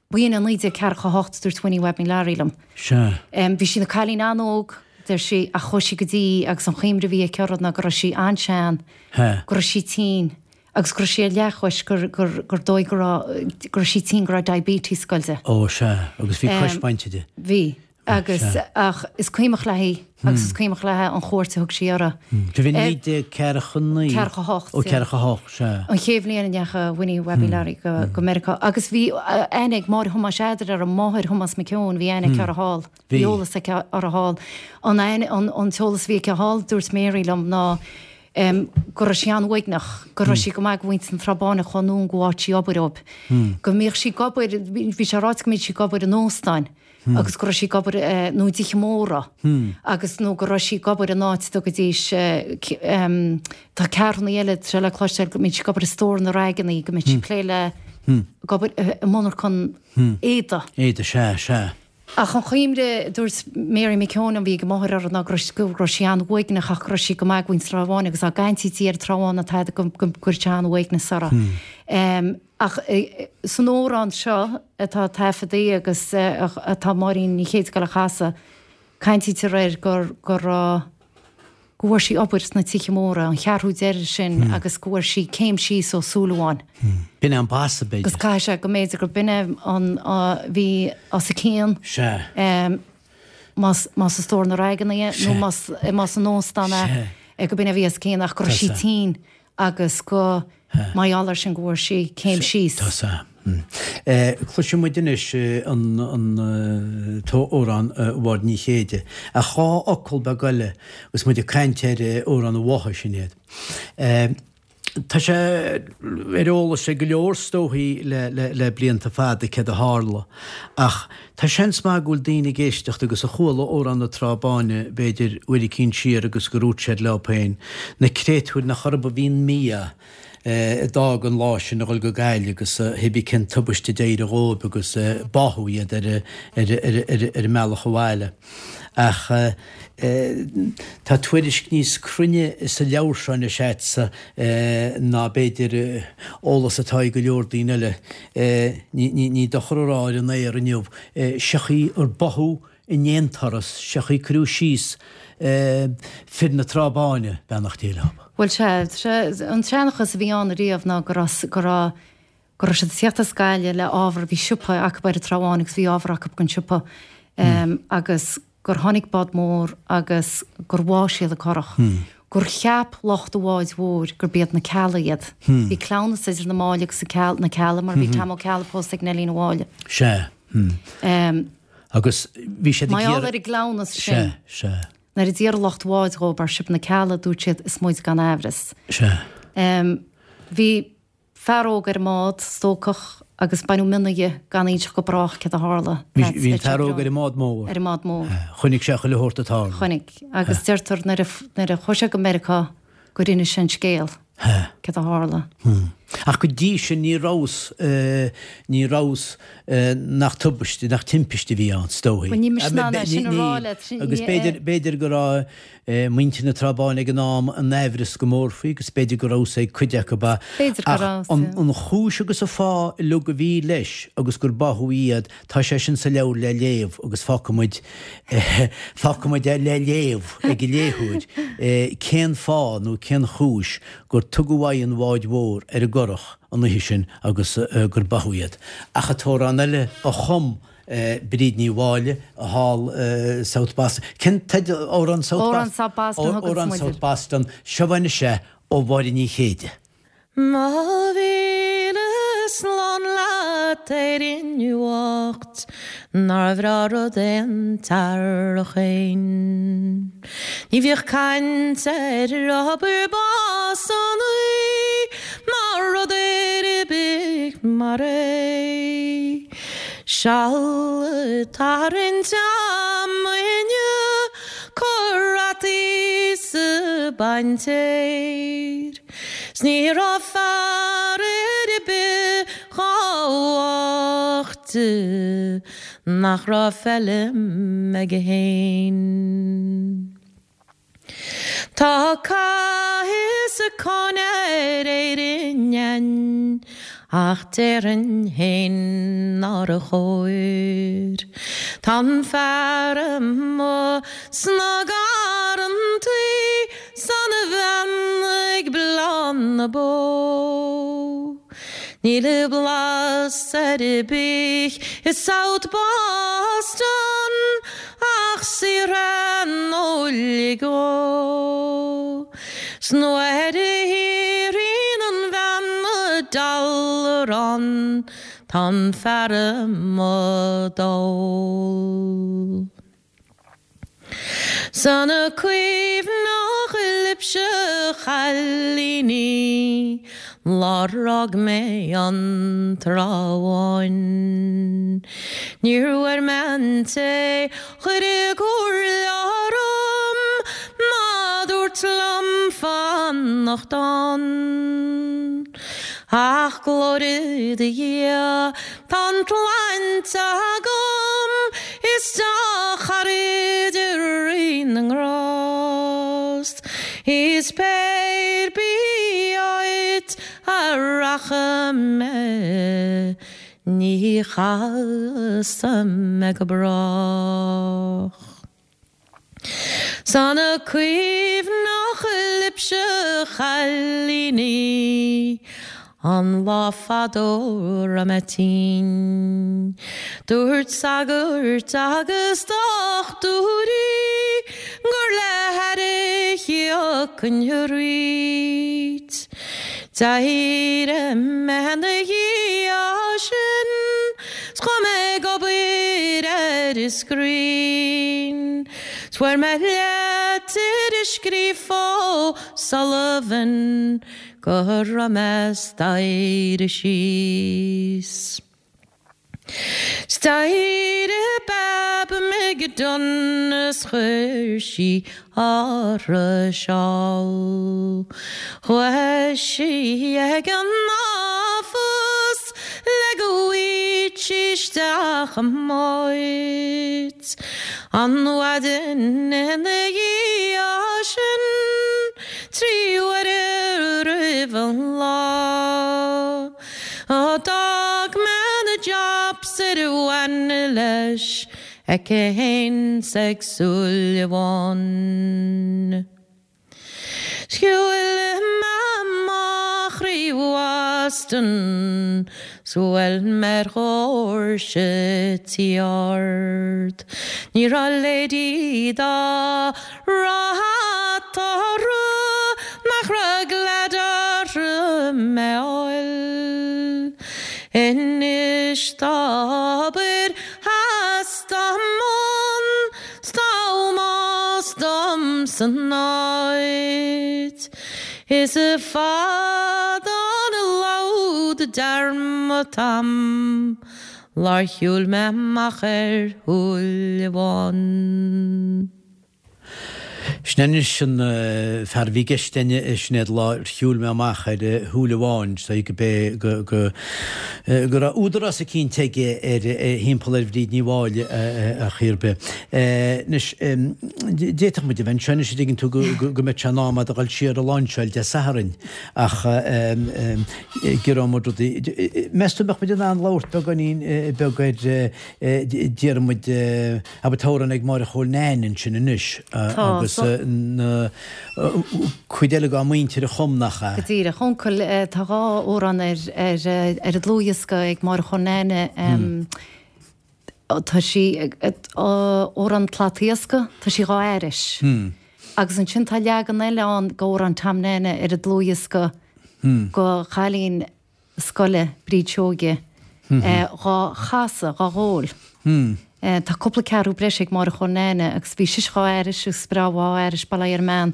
B'in i 1948, dúirt Winnie Webbie Larry liom. Bhí sí ina cailín an-óg, deir sí, ach chuaigh sí go dtí agus an chuimhne a bhí aici uirthi ná go raibh sí an-sean, go raibh sí tinn. Agus go raibh sí ar leathchois, gur, gur, gur dóigh go raibh, go raibh sí tinn, go raibh diabetes ag goil di. Ó, sea, agus bhí cois bainte di. Bhí. Agus, ach is cuimhneach léi, agus is cuimhneach léi an chuairt a thug sí uirthi. Bhí 1949. 48. Ó, 48, sea. An chéad bhliain a ndeachaigh Winnie Webbie Larry go, go Meiriceá. Agus bhí aithne ag Máire Thomáis Eadair uirthi, máthair Thomas McKeown, bhí aithne aici uirthi thall. Bhí eolas aici uirthi thall. An aithne, an, an t-eolas a bhí aici thall, dúirt Mary liom, ná, go raibh sí an-uaigneach, go raibh sí go maith go mhuintir na Trá Báine a chuaigh anonn go áit sí obair dóibh, go mbíodh sí ag obair, bhí sé ráite go mbíodh sí ag obair in óstáin agus go raibh sí ag obair nó i dtithe móra agus nó go raibh sí ag obair in áit a dtugaidís tá ceathrúnaí eile tá sé le cloisteáil go mbíodh sí ag obair i stór na raigeannaí, go mbíodh sí ag plé le ag obair i monarchan éadaigh. Éadaigh, sea, sea. Ach an chuimhne, dúirt Mary McKeown a bhí ag a máthair uirthi ná go raibh go raibh sí an-uaigneach ach go raibh sí go maith go mhuintir Trá Bháin agus dá gcaintítí ar an Trá Bháin ná tada go go gcuireadh sé an-uaigneas uirthi. Ach san amhrán seo atá taifeadtaí agus atá Máirín Ní Chéide ag dul a chasadh, caintítear air gur go raibh go bhfuair sí obair sna tithe móra, an cheathrú deiridh sin agus go bhfuair sí céim síos ó Súilleabháin. B'in é an basa, b'fhéidir. Agus caithfidh sé go mb'fhéidir gur b'in é an a bhí os a cionn. Sea. Más más i stór na raigeanna é nó más más in óstán é go b'in é a bhí os a cionn ach go raibh sí tinn. agus go mar gheall air sin go bhfuair sí céim síos. Tá sea. Cloisfidh muid anois an t-amhrán Mháire Ní Chéide. Ach dhá fhocal beag eile agus muid ag caint ar amhrán an bhátha, Sinéad. Tá sé ar eolas ag go leor is dóichí le blianta fada céard a tharla ach Tá seans maith go bhfuil daoine ag éisteacht agus a chuala Amhrán na Trá Báine b'fhéidir uair eicínt siar agus gur dhúirt siad leo féin, na créatúir nach orthu a bhí an mí-ádh. a d'fhág an lá sin a dhul go Gaillimh agus hébí cén tubaiste a d'éirigh dhóibh agus báthadh iad ar an mbealach abhaile. Ach tá tuairisc níos cruinne sa leabhar seo anois a'dsa ná b'fhéidir eolas atá ag go leor daoine eile. Ní dochar a rá ar an aer inniu, seo chaoi ar báthadh in aon turas, seo chaoi cuireadh síos fir na Trá Báine, beannacht Dé leo. Bhuel, sea, an seanchas a bhí ann ariamh ná go raibh, go raibh, go raibh siad ag tíocht as Gaillimh le ábhar, bhí siopa acu ar an Trá Bháin agus bhí ábhar acu don siopa agus gur tháinig bád mór agus gur bháigh siad an curach. Gur cheap lucht an bháid mhóir gurb iad na Ceallaigh iad. Bhí cleamhnas idir na Máille agus na Ceallaigh mar bhí Tom Ó Ceallaigh pósta ag Neilín Uí Mháille. Sea. Agus bhí siad ag iarraidh. Mar gheall ar an gcleamhnas sin. Sea, sea. Nuair a d'iarr lucht an bháid dhóibh ar sibh na Ceallaigh, dúirt siad, is muid gan aimhreas. Sea. Bhí fear óg ar an mbád, stócach, agus baineadh mionna dhe gan inseacht go brách céard a tharla. Bhí an fear óg ar an mbád mór. Ar an mbád mór. Chonaic sé chuile shórt ag tarlú. Chonaic. Agus deirtear nuair a, nuair a chuaigh sé go Meiriceá gur inis sé an scéal. Céard a tharla. Ach go dtí sin ní rabhas, ní rabhas nach tubaiste, nach timpiste a bhí ann, is dóigh. Bhuel, ní mise in ann é sin a rá leat. Agus b'fhéidir, b'fhéidir go raibh muintir na Trá Báine ag an am in aimhreas go mór faoi agus b'fhéidir go rabhas ag cuid acu. B'fhéidir go Ach rabhas, an, yeah. an chúis agus an fáth uilig a bhí leis agus gur báthadh iad, Tá sé sin sa leabhar le léamh agus fágfaidh muid, fágfaidh muid é le léamh ag an léitheoir cén fáth nó cén chúis gur tugadh aghaidh an bháid mhóir ar an gcurach an oíche sin agus gur báthadh iad. Ach an t-amhrán eile a chum Bríd Ní Mháille thall i South Boston, cén teideal, Amhrán South Boston? Amhrán South Boston a thuganns Amhrán muid South air. Boston, seo anois é ó Mháire Ní Chéide. Mo mhíle slán leat Éirinn bhocht, nár bhreá rud é an t-earrach fhéin. Ní bhíodh caint ar obair básannaí ná rud ar bith mar é. Seal ag tarraingt ama inniu, cur rataí 's baint fhéir. 'S ní raibh fear ar bith chomh bocht nach raibh feilm aige fhéin. Tá cath is cáineadh ar Éirinn ach déarfainn fhéin nár chóir. Tá an fear amuigh sna garrantaí 's an bhean ag bleán na bó. Níl blas ar bith i South Boston ach saothar an óil go. 'S nuair a shaothraíonn an bhean a dealrán tá an fear amuigh dall. 'S an cuimhneach libhse a chailíní lá ar fhág mé an Trá Bháin. Níor mhair mé an té chuir comhairle orm ná dúirt liom fanacht ann. Ach glóire do Dhia tá an tsláinte agam is dea-charaid i Rí na nGrást is pé ar bith áit a rachaidh mé ní chasfaidh mé go brách. 'S an cuimhneach libhse a chailíní an lá fadó raibh mé tinn. Dúirt sagairt agus dochtúirí gur le haire a thiocfainn arís. D'éirigh mé ina dhiaidh sin 's chuaigh mé ag obair ar an scrín. 'S fuair mé leitir scríofa ó Sullivan go raibh mé staighre síos. 'S d'éirigh Bab McDonagh 's chuir sí uirthi seál. Chuaigh sí ag an office le go bhfaigheadh sí isteach an áit. An mhaidin ina dhiaidh sin, 3 uaire roimh an lá. D'fhág mé na jobs ar a bhain leis aici fhéin 's ag Súilleabháin. Shiúil mé amach thrí Bhoston 's bhuail mé ar dhoirse tí ard. Ní raibh lady dá raibh eatarthu nach raibh glad orthu mé fháil. Anois tá obair theas dá mbun 's tá ómós dom san áit. Is fada an lód dearmad a'm lár shiúil mé amach ar Shúilleabháin. Sin anois an fear a bhí i gceist againn, a Sinéad, lár shiúil mé amach ar Shúilleabháin, is dóigh go b'é go go go raibh údarás eicínt aige ar thimpeall ar Bhríd Ní Mháille ar chaoi ar bith. Anois, d'fhéadfadh muid a bheith anseo anois, an dtuigeann tú, go go go mbeadh sé in am a'd a dhul siar a lainseáil Dé Sathairn ach giorróidh muid rudaí. Meas tú an mbeadh muid in ann labhairt beagáinín beag ar déarfaidh muid, Abair tá amhrán ag Máire Chóil Nain ansin anois agus na cuid eile dá muintir a chum, nach ea? Go díreach. Uncail, tá dhá amhrán ar ar an dlúthdhiosca ag Máire Chóil Nain. Tá sí, amhrán Slat Iascaigh, tá sí dhá aithris. Agus ansin tá leagan eile ann d'amhrán Tom Nana ar an dlúthdhiosca go chailín scoile, Bríd Seoige, dhá chasadh, dhá dhól. Tá cúpla ceathrú breise ag Máire Chóil Nain agus bhí sise dhá aithris agus breá dhá aithris, bail ó Dhia ar an mbean.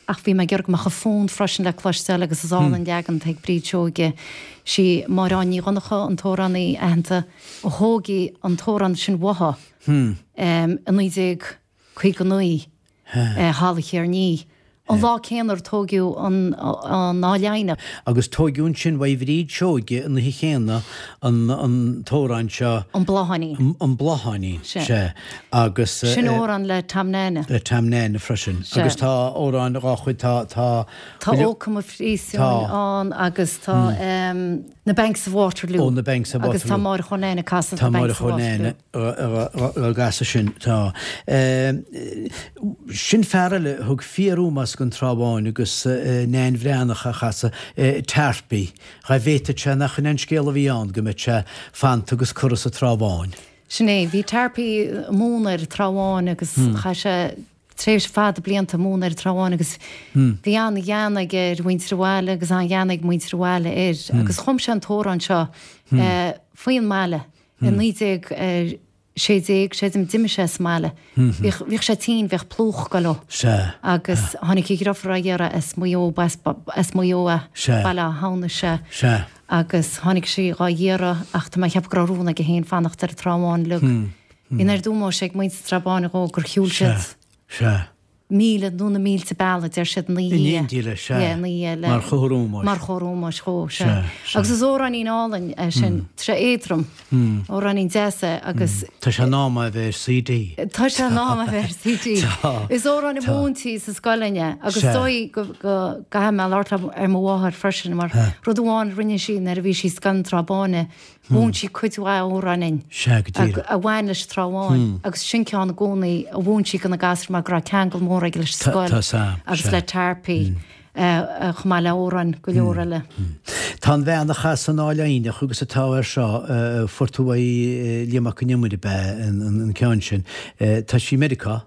Ach bhí mé ag iarraidh go mbeadh a fonn freisin le cloisteáil agus is álainn an leagan atá ag Bríd Seoige. Sí Máire Áine Ní Dhonncha, an t-amhránaí aitheanta, a thóg an t-amhrán sin uaithi i 19. 59, Halla Chearnaí, an lá céanna ar tóigeadh an Áil Eidhneach. Agus tóigeadh ansin uaidh Bhríd Seoige an oíche chéanna an t-amhrán seo. An Blátháinín. An Blátháinín, sea. Agus. Sin amhrán le Tom Nana. Le Tom Nana freisin. Agus tá amhráin dhá chuid, tá, tá. Tá Ó Come Phríosúin ann agus tá Na Banks of Waterloo. Ó, Na Banks of Waterloo. Agus tá Máire Chóil Nain ag casadh Na Banks of Waterloo. Tá Máire Chóil Nain á gcasadh sin, tá. Sin fear eile a thug fíor-ómós don Trá Bháin agus Nain Bhreathnach á chasadh, Tarpey. Dhá bhféadfadh sé nach in é an scéal a bhí ann, go mbeadh sé fanta agus curtha sa Trá Bháin. Sin é. Bhí Tarpey ag múineadh ar an Trá Bháin agus chaith sé tréimhse fada blianta ag múineadh ar an Trá Bháin agus bhí an-ghean aige ar mhuintir an bhaile agus an-ghean ag muintir an bhaile air agus chum sé an t-amhrán seo faoin mbaile i 1916, creidim, d'imigh sé as an mbaile. Bhíodh, bhíodh sé tinn, bhíodh plúch ag goil dó. Sea. Agus tháinig a dhriofúr á iarraidh as Maigh Eo, as, as Maigh Eo é. Sea. Baile Átha Hamhnais, sea. Sea. Agus tháinig sí dhá iarraidh ach tá mé ag ceapadh go raibh rún aige féin fanacht ar an Trá Bháin uilig. Bhí an oiread ómóis ag muintir an Trá Báin dhó gur shiúil siad. Sea. Sea. Míle nó na mílte bealaigh, deir siad, ina dhiaidh. In éindí leis, sea. Yeah, ina dhiaidh le. Mar chomhartha ómóis. Mar chomhartha ómóis dhó, sea. Sea, sea. Agus is amhráinín álainn é sin. Tá sé éadrom. Amhráinín deas é agus. Tá sé in am é a bheith ar CD. Tá sé in am a bheith ar CD. Tá. Is amhrán a mhúintí sa scoil againn é agus is dóigh go gcaithfidh mé labhairt ar mo mháthair freisin mar rud amháin a rinne sí nuair a bhí sí i Scoil an Trá Báine, Mhúin sí cuid mhaith amhrán inn Sea, go díreach. a bhain leis an Trá Bháin agus sin ceann i gcónaí a mhúin sí do na gasúir mar go raibh ceangal mór aige leis an scoil Tá, sea, agus le Tarpey chomh maith le amhráin go leor eile. Tá an bhean a chas an Áil Eidhneach agus atá air seo, fuair tú uaidh Liam Mac Con Iomaire ab ea an ceann sin. Tá sí i Meiriceá.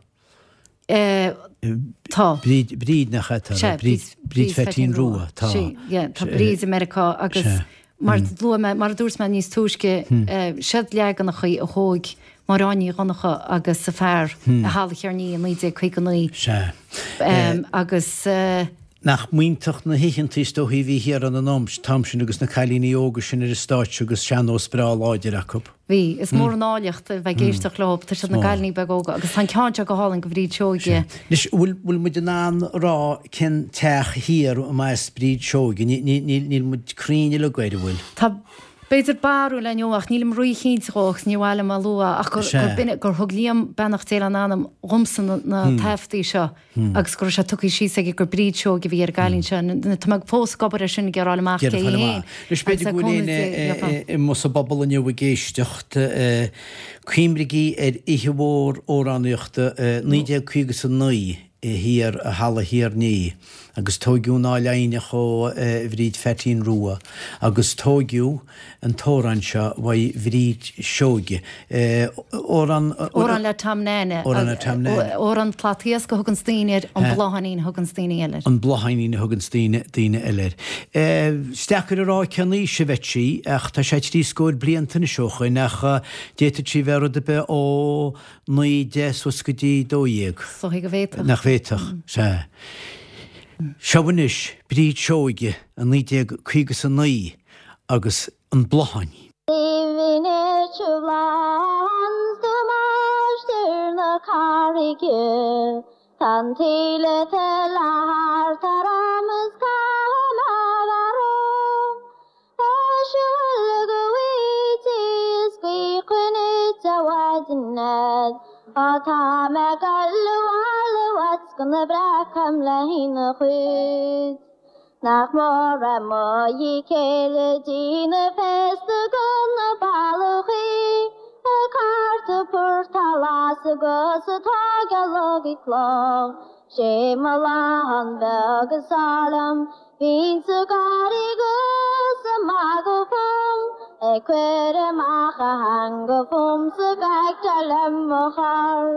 Tá. Bríd, Bríd nach ea? Sea, Bríd, Bríd Pheaitín Rua, tá. Sí, yeah, tá Bríd i Meiriceá agus mar luaigh mé, mar a dúirt mé níos túisce, siad leaganachaí a thóig Máire Áine Ní Dhonncha agus a fear i Halla Chearnaí i 1959. Sea. Agus. Nach mb'iontach na hoícheantaí is dóichí a bhí thiar ann an t-am sin agus na cailíní óga sin ar an stáitse agus sean-nós breá láidir acu. Bhí. Is mór an áilleacht a bheith ag éisteacht leo. Tá siad ina gcailíní beaga óga agus tá an ceann seo go hálainn go Bhríd Seoige. Anois, bhfuil, bhfuil muid in ann a rá cén teach thiar a mba as Bríd Seoige? Níl, níl, níl muid cruinn uilig air, an bhfuil? Tá, b'fhéidir, barúil againn ach nílim rí-chinnte dhó agus níor mhaith liom a lua ach gur, gur b'in, gur thug Liam, beannacht Dé lena anam, dhomsa na, na taifeadtaí seo. agus go raibh sé tugtha síos aige gur Bríd Seoige a bhí ar an gcailín seo. Tá mé fós ag obair ar sin ag iarraidh fháil amach cé hí féin. Anois b'fhéidir go bhfuil éinne amuigh sa bpobal inniu ag éisteacht, cuimrigí ar oíche mhór amhránaíochta 1959 thiar i Halla Thír an Fhia agus tóigeadh an Áil Aidhneach ó Bhríd Pheaitín Rua agus tóigeadh an t-amhrán seo uaidh Bhríd Seoige. Amhrán. Amhrán le Tom Nane. Amhrán le Tom Nane. Amhrán Slat Iasc a thuganns daoine air, an Blátháinín a thuganns daoine eile air. An Blátháinín a thuganns daoine, daoine eile air. Is deacair a rá cén aois a bheadh sí ach tá sé trí scór blianta anois ó shoin ach d'fhéadfadh sí bheith rud ar bith ó 9, 10 suas go dtí 12. Is dóigh go bhféadfadh. Nach bhféadfadh? Sea. Seo anois Bríd Seoige i 1959. agus an Blátháinín. Nach mór é mo dhíth céille dí na féasta go na ballachaí ag cartadh purtáil as agus atá gealach ag cloch. Sé mo bhláthán beag is fearr liom, bhínnse ag gáirí 'gus ag magadh fúm, ag cuir amach a theanga fúmsa gach dar liom mo chor.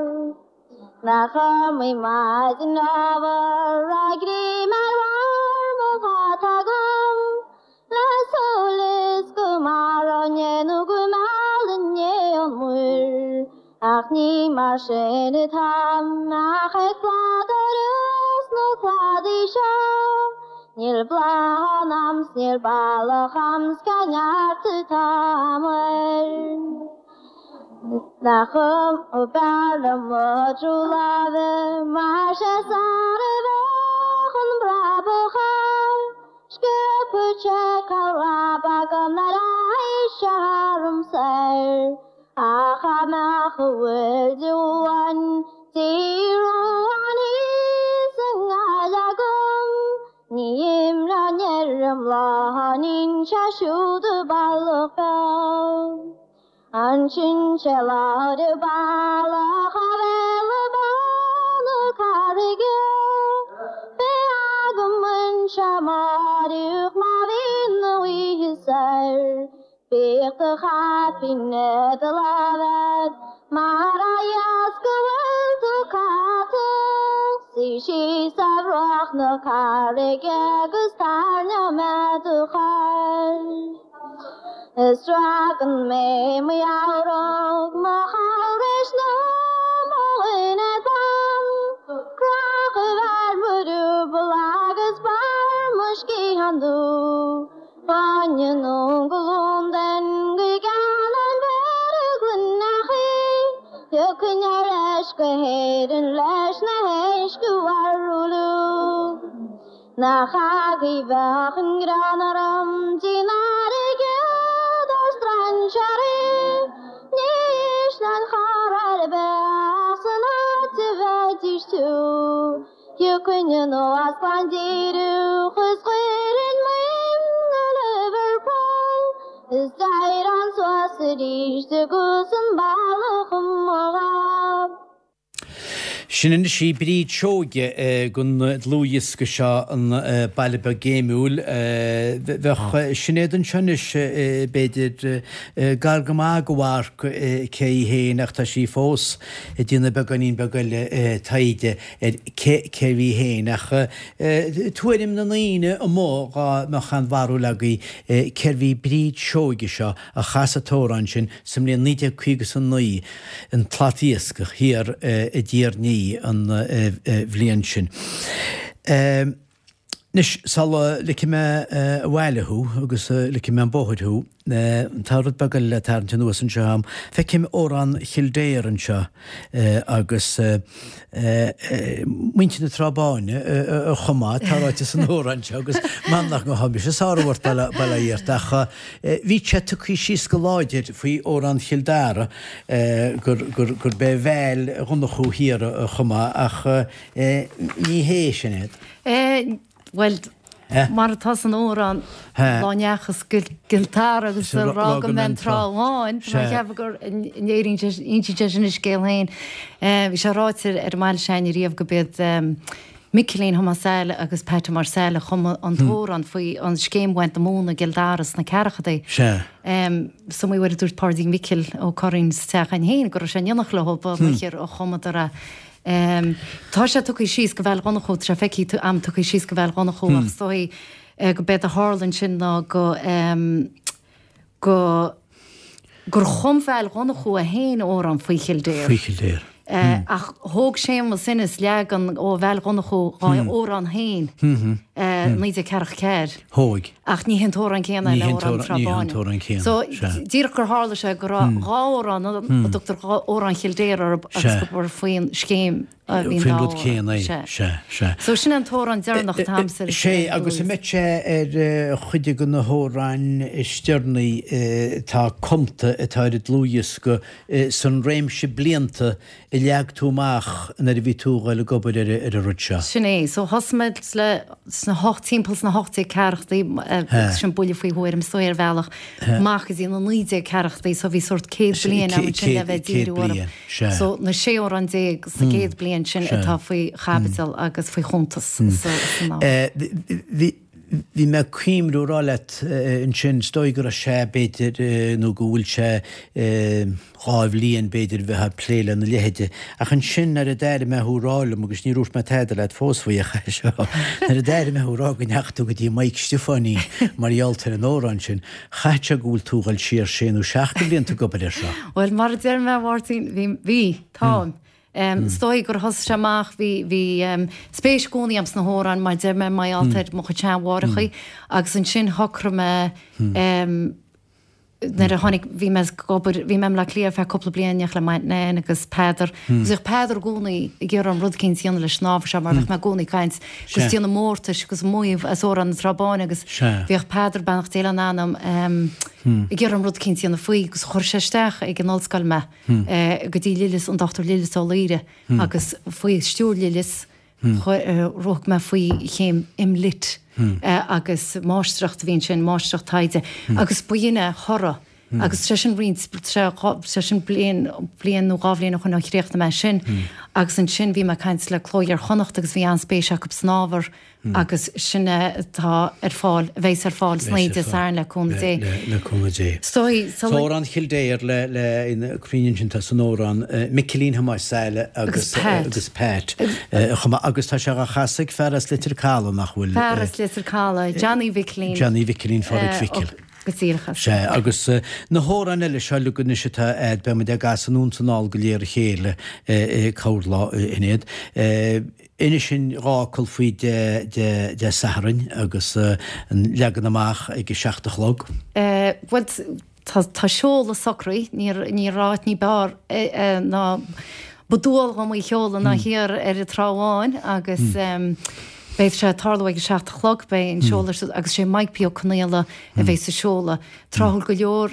Nach iomaí maidin ábhar a greim ar bharr mo hata agam le súil is go maróinn é nó go meallfainn é ón muir ach ní mar sin atáim ach ag pladaireacht sna cladaí seo níl bláthán a'm 's níl bealach a'm 's cá neart atá a'm air. Nach b'fhearr liom mo thrú láimhe mar sé sar a bheadh an brabach air. Sciobfadh sé cá raib agam nár aghaidh sé tharam soir. Ach dá mbeadh a bhfuil de uain díruan thíos i nGaillimh agam ní imreoinn ar an mBláthainín sé siúd a bealach beag. Ansin sé lá de bhealach a bhéal bán na carraige. Beidh agam anseo amáireach má bhíonn na oíche soir. Bíodh do chaipín i do láimh a'd mar a dheas go bhfuil tú caite. Suigh síos ar bhruach na carraige agus tairneoidh mé do chur. Is sragann mé mo gheabhróg, mo chabhrais nó mo dhuine donn. Crochadh ar mo riúbal agus barr mo sciathán dubh. Baineann ón gColóim den go gceann an bhéara gloineachaí. Thiocfainn ar ais go hÉirinn leis na héisc a mharú. Nach agaibh bheadh an greann orm dtí an fharraige do strainséirí Ní ísleoinn chor ar bith ach san áit a bheidís tú Thiocfainn anuas glan díreach is chuirfinn m'ainm go Liverpool Is d'éireoinn suas arís agus an bealach i mo ghob. Sin anois í Bríd Seoige den dlúthdhiosca seo, An Baile Beag Géimiúil. Bheadh Sinéad anseo anois, b'fhéidir, gar go maith go mharc cé í féin ach tá sí fós ag déanamh beagáinín beag eile taighde ar cé cérbh í féin. Ach tuairim na ndaoine amuigh dhá mbeadh aon bharúil agaibh cérbh í Bríd Seoige seo a chas an t-amhrán sin sa mbliain 1959, An tSlat Iascaigh thiar i dTír an Fhia an bhliain sin. Anois, sula ligfidh mé abhaile thú agus ligfidh mé an bóthar thú, tá rud beag eile le tarraingt anuas anseo agam. Feicim Amhrán Chill Dara anseo agus muintir na Trá Báine a chum é, tá ráite san amhrán seo agus m'anam nach ngabhfaidh mise sárú ort, bail ó Dhia ort, ach bhí sé tugtha síos go láidir faoi Amhrán Chill Dara gurb é Val Dhonnchú Thiar a chum é ach ní hé sin é. Bhuel, mar atá san amhrán, lá ndeachas go Cill Dara agus a rá go mbeidh an Trá Bháin, tá mé ag ceapadh go n-éiríonn sé, insíonn sé sin a scéal féin. Bhí sé ráite ar an mbaile s'againne riamh go b'iad Micilín Thomáis Saile agus Pat Thomáis Saile a chum an t-amhrán faoi an scéim bhaint na móna i gCill Dara sna ceathrachadaí. Sea. Is iomaí uair a dúirt Páidí Mhicil Ó Curraoin sa teach againn féin go raibh sé in éineacht leo ba mhór a chumadar é. Tá sé tugtha síos go Val Dhonnchú, tá sé feicthe a'm tugtha síos go Val Dhonnchú ach is dóigh go b'éard a tharla ansin ná go go gur chum Val Dhonnchú é féin amhrán faoi Chill Dara. Faoi Chill Dara. Ach thóg Séamus Ennis leagan ó Val Dhonnchú dhá amhrán féin i 1944. Thóg. Ach ní hé an t-amhrán céanna é le Amhrán na Trá Ní hé an t-amhrán céanna. So, díreach gur tharla sé go raibh dhá amhrán ann a dtugtar Amhrán Chill Dara orthu agus gur faoin scéim a bhí an dá amhrán. Faoin rud céanna é. Sea, sea. So, sin é an t-amhrán deireanach atá a'msa ar Sea, agus an mbeidh sé ar chuid de na hamhráin is deireanaí atá cumta atá ar an dlúthdhiosca san réimse blianta a leag tú amach nuair a bhí tú a dhul ag obair ar an rud seo? Sin é. So thosaigh mé le sna hocht, timpeall sna 1840idí, agus sin buille faoi thuairim is dóigh ar bhealach, amach go dtí na 1940idí, so bhí sórt 100 bliain agam ansin le bheith ag díriú orthu. So na 16 amhrán sa gcéad bliain sin atá faoi chaibidil agus faoi chuntas san ábhar. Bhí. Bhí mé ag cuimhniú a rá leat ansin, is dóigh go raibh sé, b'fhéidir, nó go bhfuil sé 2 bhliain, b'fhéidir, bheith ag plé lena leithide. Ach ansin nuair a d'airigh mé thú ag rá liom, agus níor dhúirt mé tada leat fós faoi ach é seo, nuair a d'airigh mé thú ag rá go ndeachaigh tú go dtí Mike Stiofáinín mar gheall ar an amhrán sin, chaithfeadh sé go bhfuil tú ag dul siar sé nó seacht de bhlianta ag obair air seo. Bhuel, mar a deir mé, a Mháirtín, bhí, bhí, táim. Is dóigh gur thosaigh sé amach, bhí, bhí spéis i gcónaí agam sna hamhráin, mar deir mé, mar gheall ar mo chuid seanmháithreachaí agus ansin shocraigh mé nuair a tháinig, bhí mé ag obair, bhí mé i mBleá Cliath ar feadh cúpla bliain, in éineacht le m'aint Nan agus Peadar agus bhíodh Peadar i gcónaí ag iarraidh orm rud eicínt a dhéanamh leis an ábhar seo mar bhíodh mé i gcónaí ag caint agus déanamh mórtais agus maíomh as Amhrán na Trá Báine agus bhíodh Peadar, beannacht Dé lena anam, ag iarraidh orm rud eicínt a dhéanamh faoi agus chuir sé isteach ag an ollscoil mé. go dtí Lillis, an Dr Lillis Ó Laoire, agus faoi stiúir Lillis, rug mé faoi chéim MLitt agus máistreacht a bhí ansin, máistreacht taighde, agus ba shin é a thoradh. Agus sé sin roinnt, sé sin bliain, bliain nó dhá bhliain ó shoin ó chríochnaigh mé sin. Agus ansin bhí mé ag caint le Cló Iar-Chonnacht agus bhí an-spéis acu san ábhar. agus sin é atá ar fáil, a bheas ar fáil san oíche Dé Sathairn le cúnamh Dé. Le cúnamh Dé. Is dóigh, sula. Amhrán Chill Dara le, le, ina cruinn ansin tá san amhrán Micilín Thomáis Saile agus Pat. agus Pat chomh maith agus tá sé á chasadh ag fear as Leitir Caladh nach bhfuil? Fear as Leitir Caladh, Johnny Mhicilín. Johnny Mhicilín Phádraig Mhicil. Go díreach as. Sea, agus na hamhráin eile seo uilig anois atá a'd, beidh muid á gcasadh anonn 's anall go léir a chéile corrlá in iad. Inis dúinn dhá fhocal faoi Dé Sathairn agus an leagan amach ag a seacht a chlog. Bhuel, tá seoladh socraithe, ní raibh áit ní b'fhearr ná ba dual dhom í a sheoladh ná thiar ar an Trá Bháin agus beidh sé ag tarlú ag a seacht a chlog, beidh an seoladh agus sé Mike P. Ó Conaola a bheidh sa seoladh. Tráthúil go leor,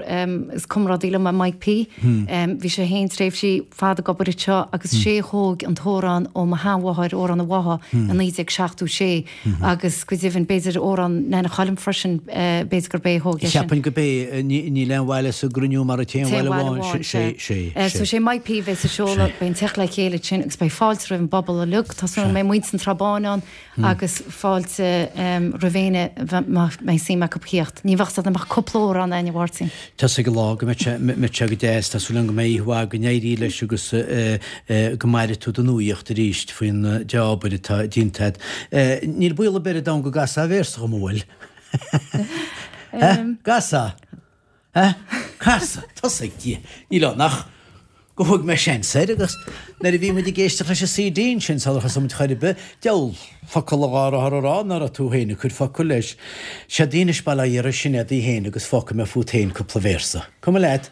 is comrádaí liom é Mike P. Bhí sé féin tréimhsí fada ag obair anseo agus sé a thóg an t-amhrán ó mo sheanmháthair, Amhrán an Bhátha, i 1976 agus go deimhin b'fhéidir amhrán Nana Choilm freisin, b'fhéidir gurb é a thóg é sin. Cheapfainn gurb é, níl aon bhaile sa gcruinniú mar an t-aon bhaile amháin, sé, sé, sé. So sé Mike P a bheidh sa seoladh, beidh an teacht le chéile ansin agus beidh fáilte roimh an bpobal uilig, tá súil agam go mbeidh muintir na Trá Báine ann, agus fáilte roimh éinne má mbeidh suim acu theacht. Ní bheadh ann ach cúpla amhrán againn, a Mháirtín. Tá 'fhios ag an lá go mbeidh sé, mbeidh sé go deas. Tá súil agam go mbeidh oíche mhaith, go n-éirí leis agus go maire tú don nuaíocht arís faoin dea-obair atá déanta agat. Níl baol ar bith ar domhan go gcasfá véarsa dhom, an bhfuil? Gcasfá? Cas, tosaigh, Dia. Níl ann ach. Go thug mé seans air agus nuair a bhí muid ag éisteacht leis an CD ansin sular thosaigh muid chor ar bith, diabhal focal a dhá raibh a rá ná raibh tú féin ag cur focal leis. Séard í anois bail ó Dhia ar Sinéad í féin agus fágfaidh mé fút féin cúpla véarsa. Cuma leat?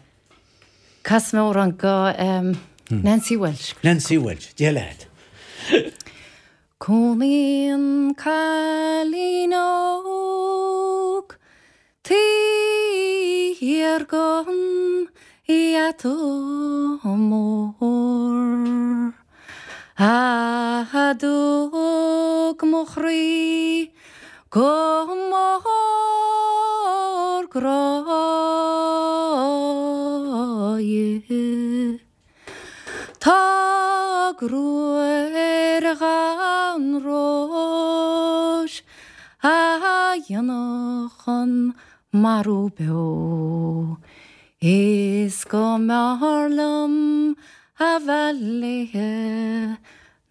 Casfaidh mé amhrán go Nancy Walsh. Nancy Walsh, Dia leat. Cónaíonn cailín óg taobh thiar den gheata mór. A dtug mo chroí go mór grá dhi. Tá gruaig ar dhath an róis a dhéanfadh an marú beo. Is go mb'fhearr liom a bheith léithe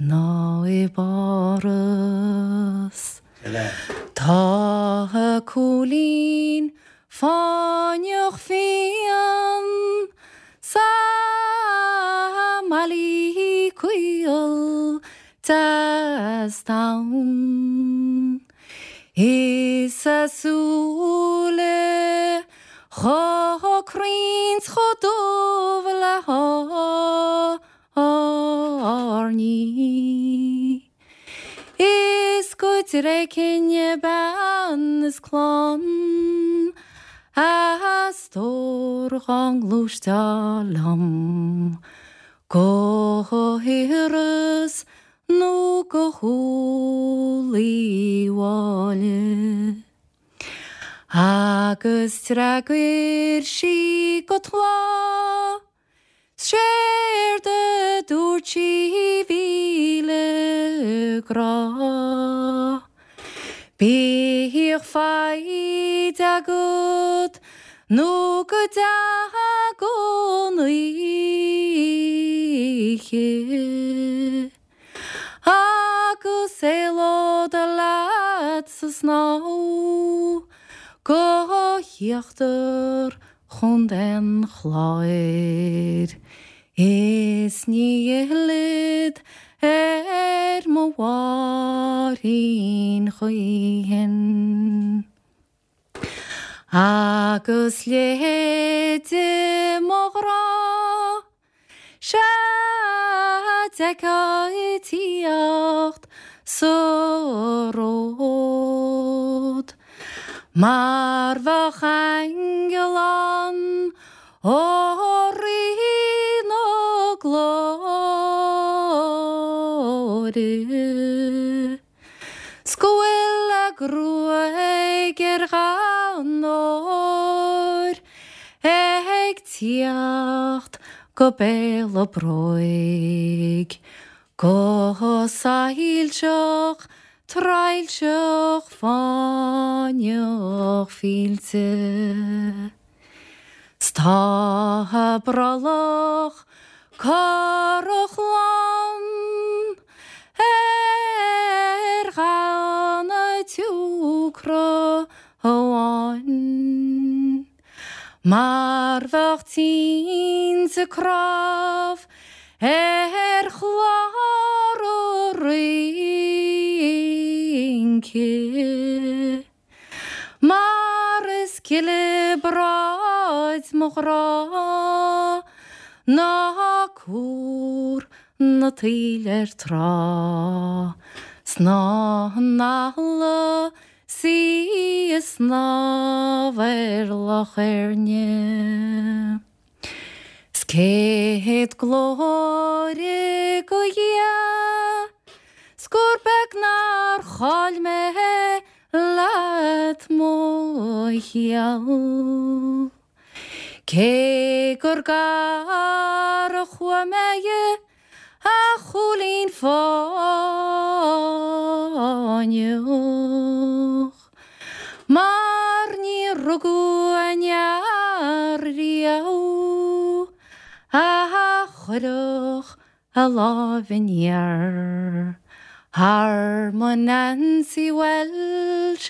ná i bPáras. Tá a cúilín fáinneach fiáin sa mbaile caol deas donn. Is a súile chomh cruinn 's chomh dubh le hairní. Is go dtréigfinn bean is clann a stór dhá ngluaisteá liom go hIorras nó go hÚll Uí Mháille. Agus d'fhreagair sí go tláth. 'Séard a dúirt sí 'mhíle grá. Bíodh foighid agat nó go dtaga an oíche Agus éalód leat sa snámh go híochtar Chontae an Chláir. Is ní fhillfead ar mo Mháirín choíchin. Agus leithéide mo ghrá, sea d'fheicfeá ag tíocht sa ród. Mar bheadh aingeal ann ó Rí na Glóire. 'S go bhfuil a gruaig ar dhath an óir ag tíocht go béal a bróig, go soilseach traidhilseach fáinneach fillte. 'S tá a brollach corrach lán ar dhath an tsiúcra amháin, Mar bheadh tinte cnámh ar chlár an rince. Mar is gile bráid mo ghrá ná cúr na taoille ar trá 's ná an eala 's í ag snámh ar Loch Éirne. 'S céad glóire go Dhia 's gur beag nár chaill mé leat mo sheal. Cé gur gar a chuaigh mé a chúilín fáinneach, mar ní rugadh aon fhear riamh a chuirfeadh a láimh aniar thar mo Nancy Walsh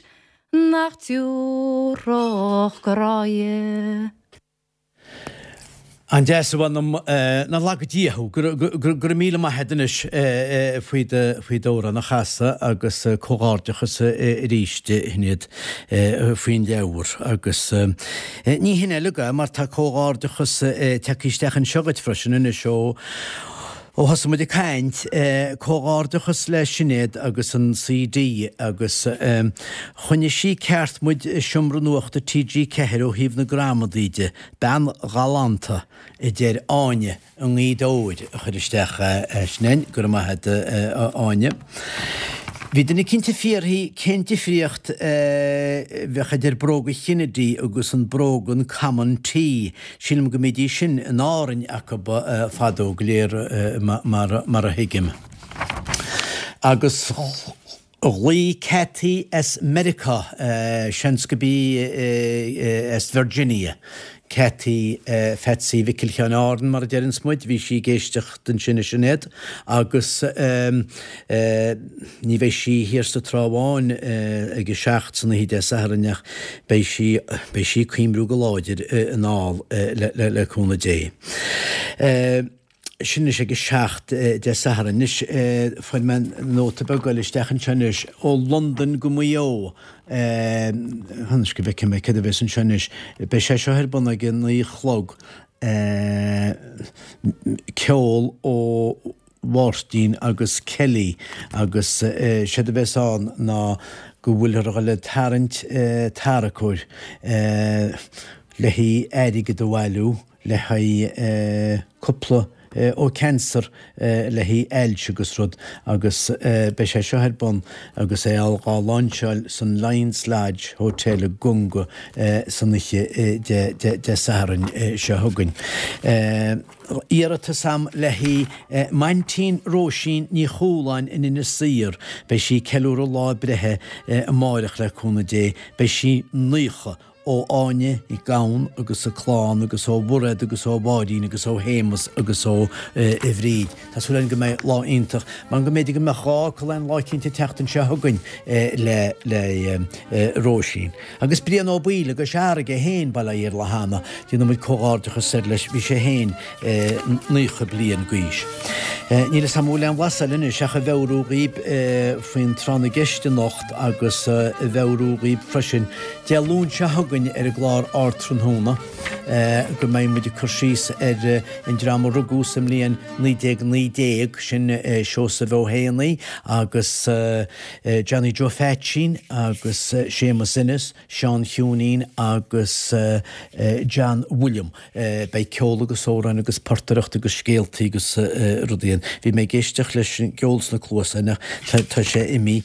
nach dtiúrfadh grá dhi. An-deas a mh'anam, nár laga Dia thú. Go raibh míle maith agat anois faoi d'amhrán a chasadh agus comhghairdeachas arís a Shinéad faoin leabhar. Agus ní hin uilig é mar tá comhghairdeachas tagtha isteach anseo dhuit freisin anois ó ó thosaigh muid ag caint. Comhghairdeachas le Sinéad agus an CD agus choinnigh sí ceart muid i Seomra Nuachta TG4 ó thaobh na gramadaí de. Bean ghalánta, a deir Áine i nGaoth Dobhair a chuir isteach é sin. Go raibh maith agat, a Áine. Bhí duine eicínt ag fiafraí cén difríocht a bheadh idir bróga Kennedy agus an brógan Common T. Sílim go mbídís sin in Árainn acu fadó go léir mar a thuigim. Agus. Ghlaoigh Cathy as Meiriceá, seans go b'í as Virginia, Cathy Pheatsaí Mhicil Sheáin Árann mar a deireanns muid, bhí sí ag éisteacht ansin a Sinéad agus ní bheidh sí thiar sa Trá Bháin ag a 7 san oíche Dé Sathairn ach beidh sí, beidh sí ag cuimriú go láidir anall le cúnamh Dé. Sin anois ag a 7 Dé Sathairn. Anois, fuair mé nóta beag eile isteach anseo anois, ó Londain go Maigh Eo. Anois go bhfeicfidh mé céard a bheas anseo anois. Beidh sé seo ar bun ag a 9 a chlog. Ceol ó Mháirtín agus Kelly agus séard a bheas ann ná go bhfuilthear a dhul ag tarraingt tarracóir le haghaidh airgead a bhailiú. le haghaidh cúpla ó cancer le haghaidh ailse agus rud agus beidh sé seo ar bun agus é á láinseáil san Lions Lodge Hotel i gConga san oíche Dé Sathairn seo chugainn. Iarratas a'm le haghaidh m'aintín Róisín Ní Chualáin in Inis Oírr. Beidh sí ag ceiliúradh lá a breithe amáireach le cúnamh Dé. Beidh sí 90. ó Áine Nic Gabhann agus a clann agus ó Mhairéad agus ó Mháirín agus ó Shéamus agus ó Bhríd. Tá súil againn go mbeidh lá iontach, mar go mb'fhéidir go mbeadh gá acu aon lá eicínt an tseachtain seo chugainn le le Róisín. Agus Brian Ó Baoill i gCois Fharraige féin, bail ó Dhia air le hAnna, déanann muid comhghairdeachas air leis, bhí sé féin 90 bliain d'aois. Níl 'fhios a'm an bhfuil aon bhlas eile anois ach a mheabhrú dhaoib faoin tráth na gceist anocht agus a mheabhrú dhaoib freisin Dé Luain seo chugainn ar an gclár Ardtráthnóna go mbeidh muid ag cur síos ar an dream a rugadh sa mbliain 1919, sin Seosamh Ó hÉanaí agus Johnny Joe Pheaitsín agus Séamus Ennis, Seán Chiúinín agus John William. Beidh ceol agus amhráin agus portaireacht agus scéaltaí agus rudaí ann. Bhí mé ag éisteacht leis an gceol sna cluasáin ach tá sé imithe,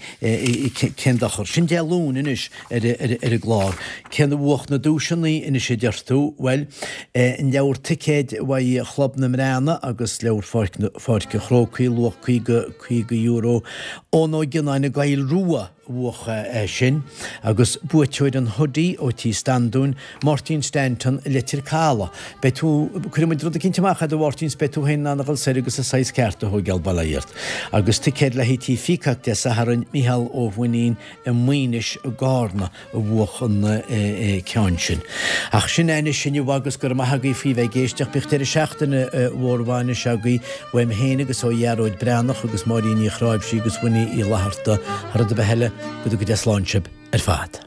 cén dochar. Sin Dé Luain anois ar an gclár. Cén a bhuach na duaiseanna anois a deir tú? Bhuel, an leabhar ticéid uaidh Chlub na mBreathnach agus leabhar Pháirc an Chrócaigh, luach €50, Eoin Ó Gionnáin i gCoill Rua. bhuach é sin, agus buaiteoir an hoodie ó Tí Standúin, Máirtín Stanton i Leitir Caladh. Beidh tú, cuirfidh muid rud eicínt amach a'd a Mháirtín 's beidh tú féin in ann a dhul soir agus an saghas ceart a thóigeáil, bail ó Dhia ort. Agus ticéad le haghaidh Tí Pheacock Dé Sathairn, Mícheál Ó Mhainnín i Maínis i gCarna a bhuach an ceann sin. Ach sin é anois inniu agus go raibh maith agaibh faoi bheith ag éisteacht. Bíodh deireadh seachtaine mhór mhaith anois agaibh uaim féin agus ó Ghearóid Breathnach agus Máirín Ní Chráimhsí agus Winnie Uí Fhlatharta. Thar rud ar bith eile, go dtuga Dia slán sibh ar fad.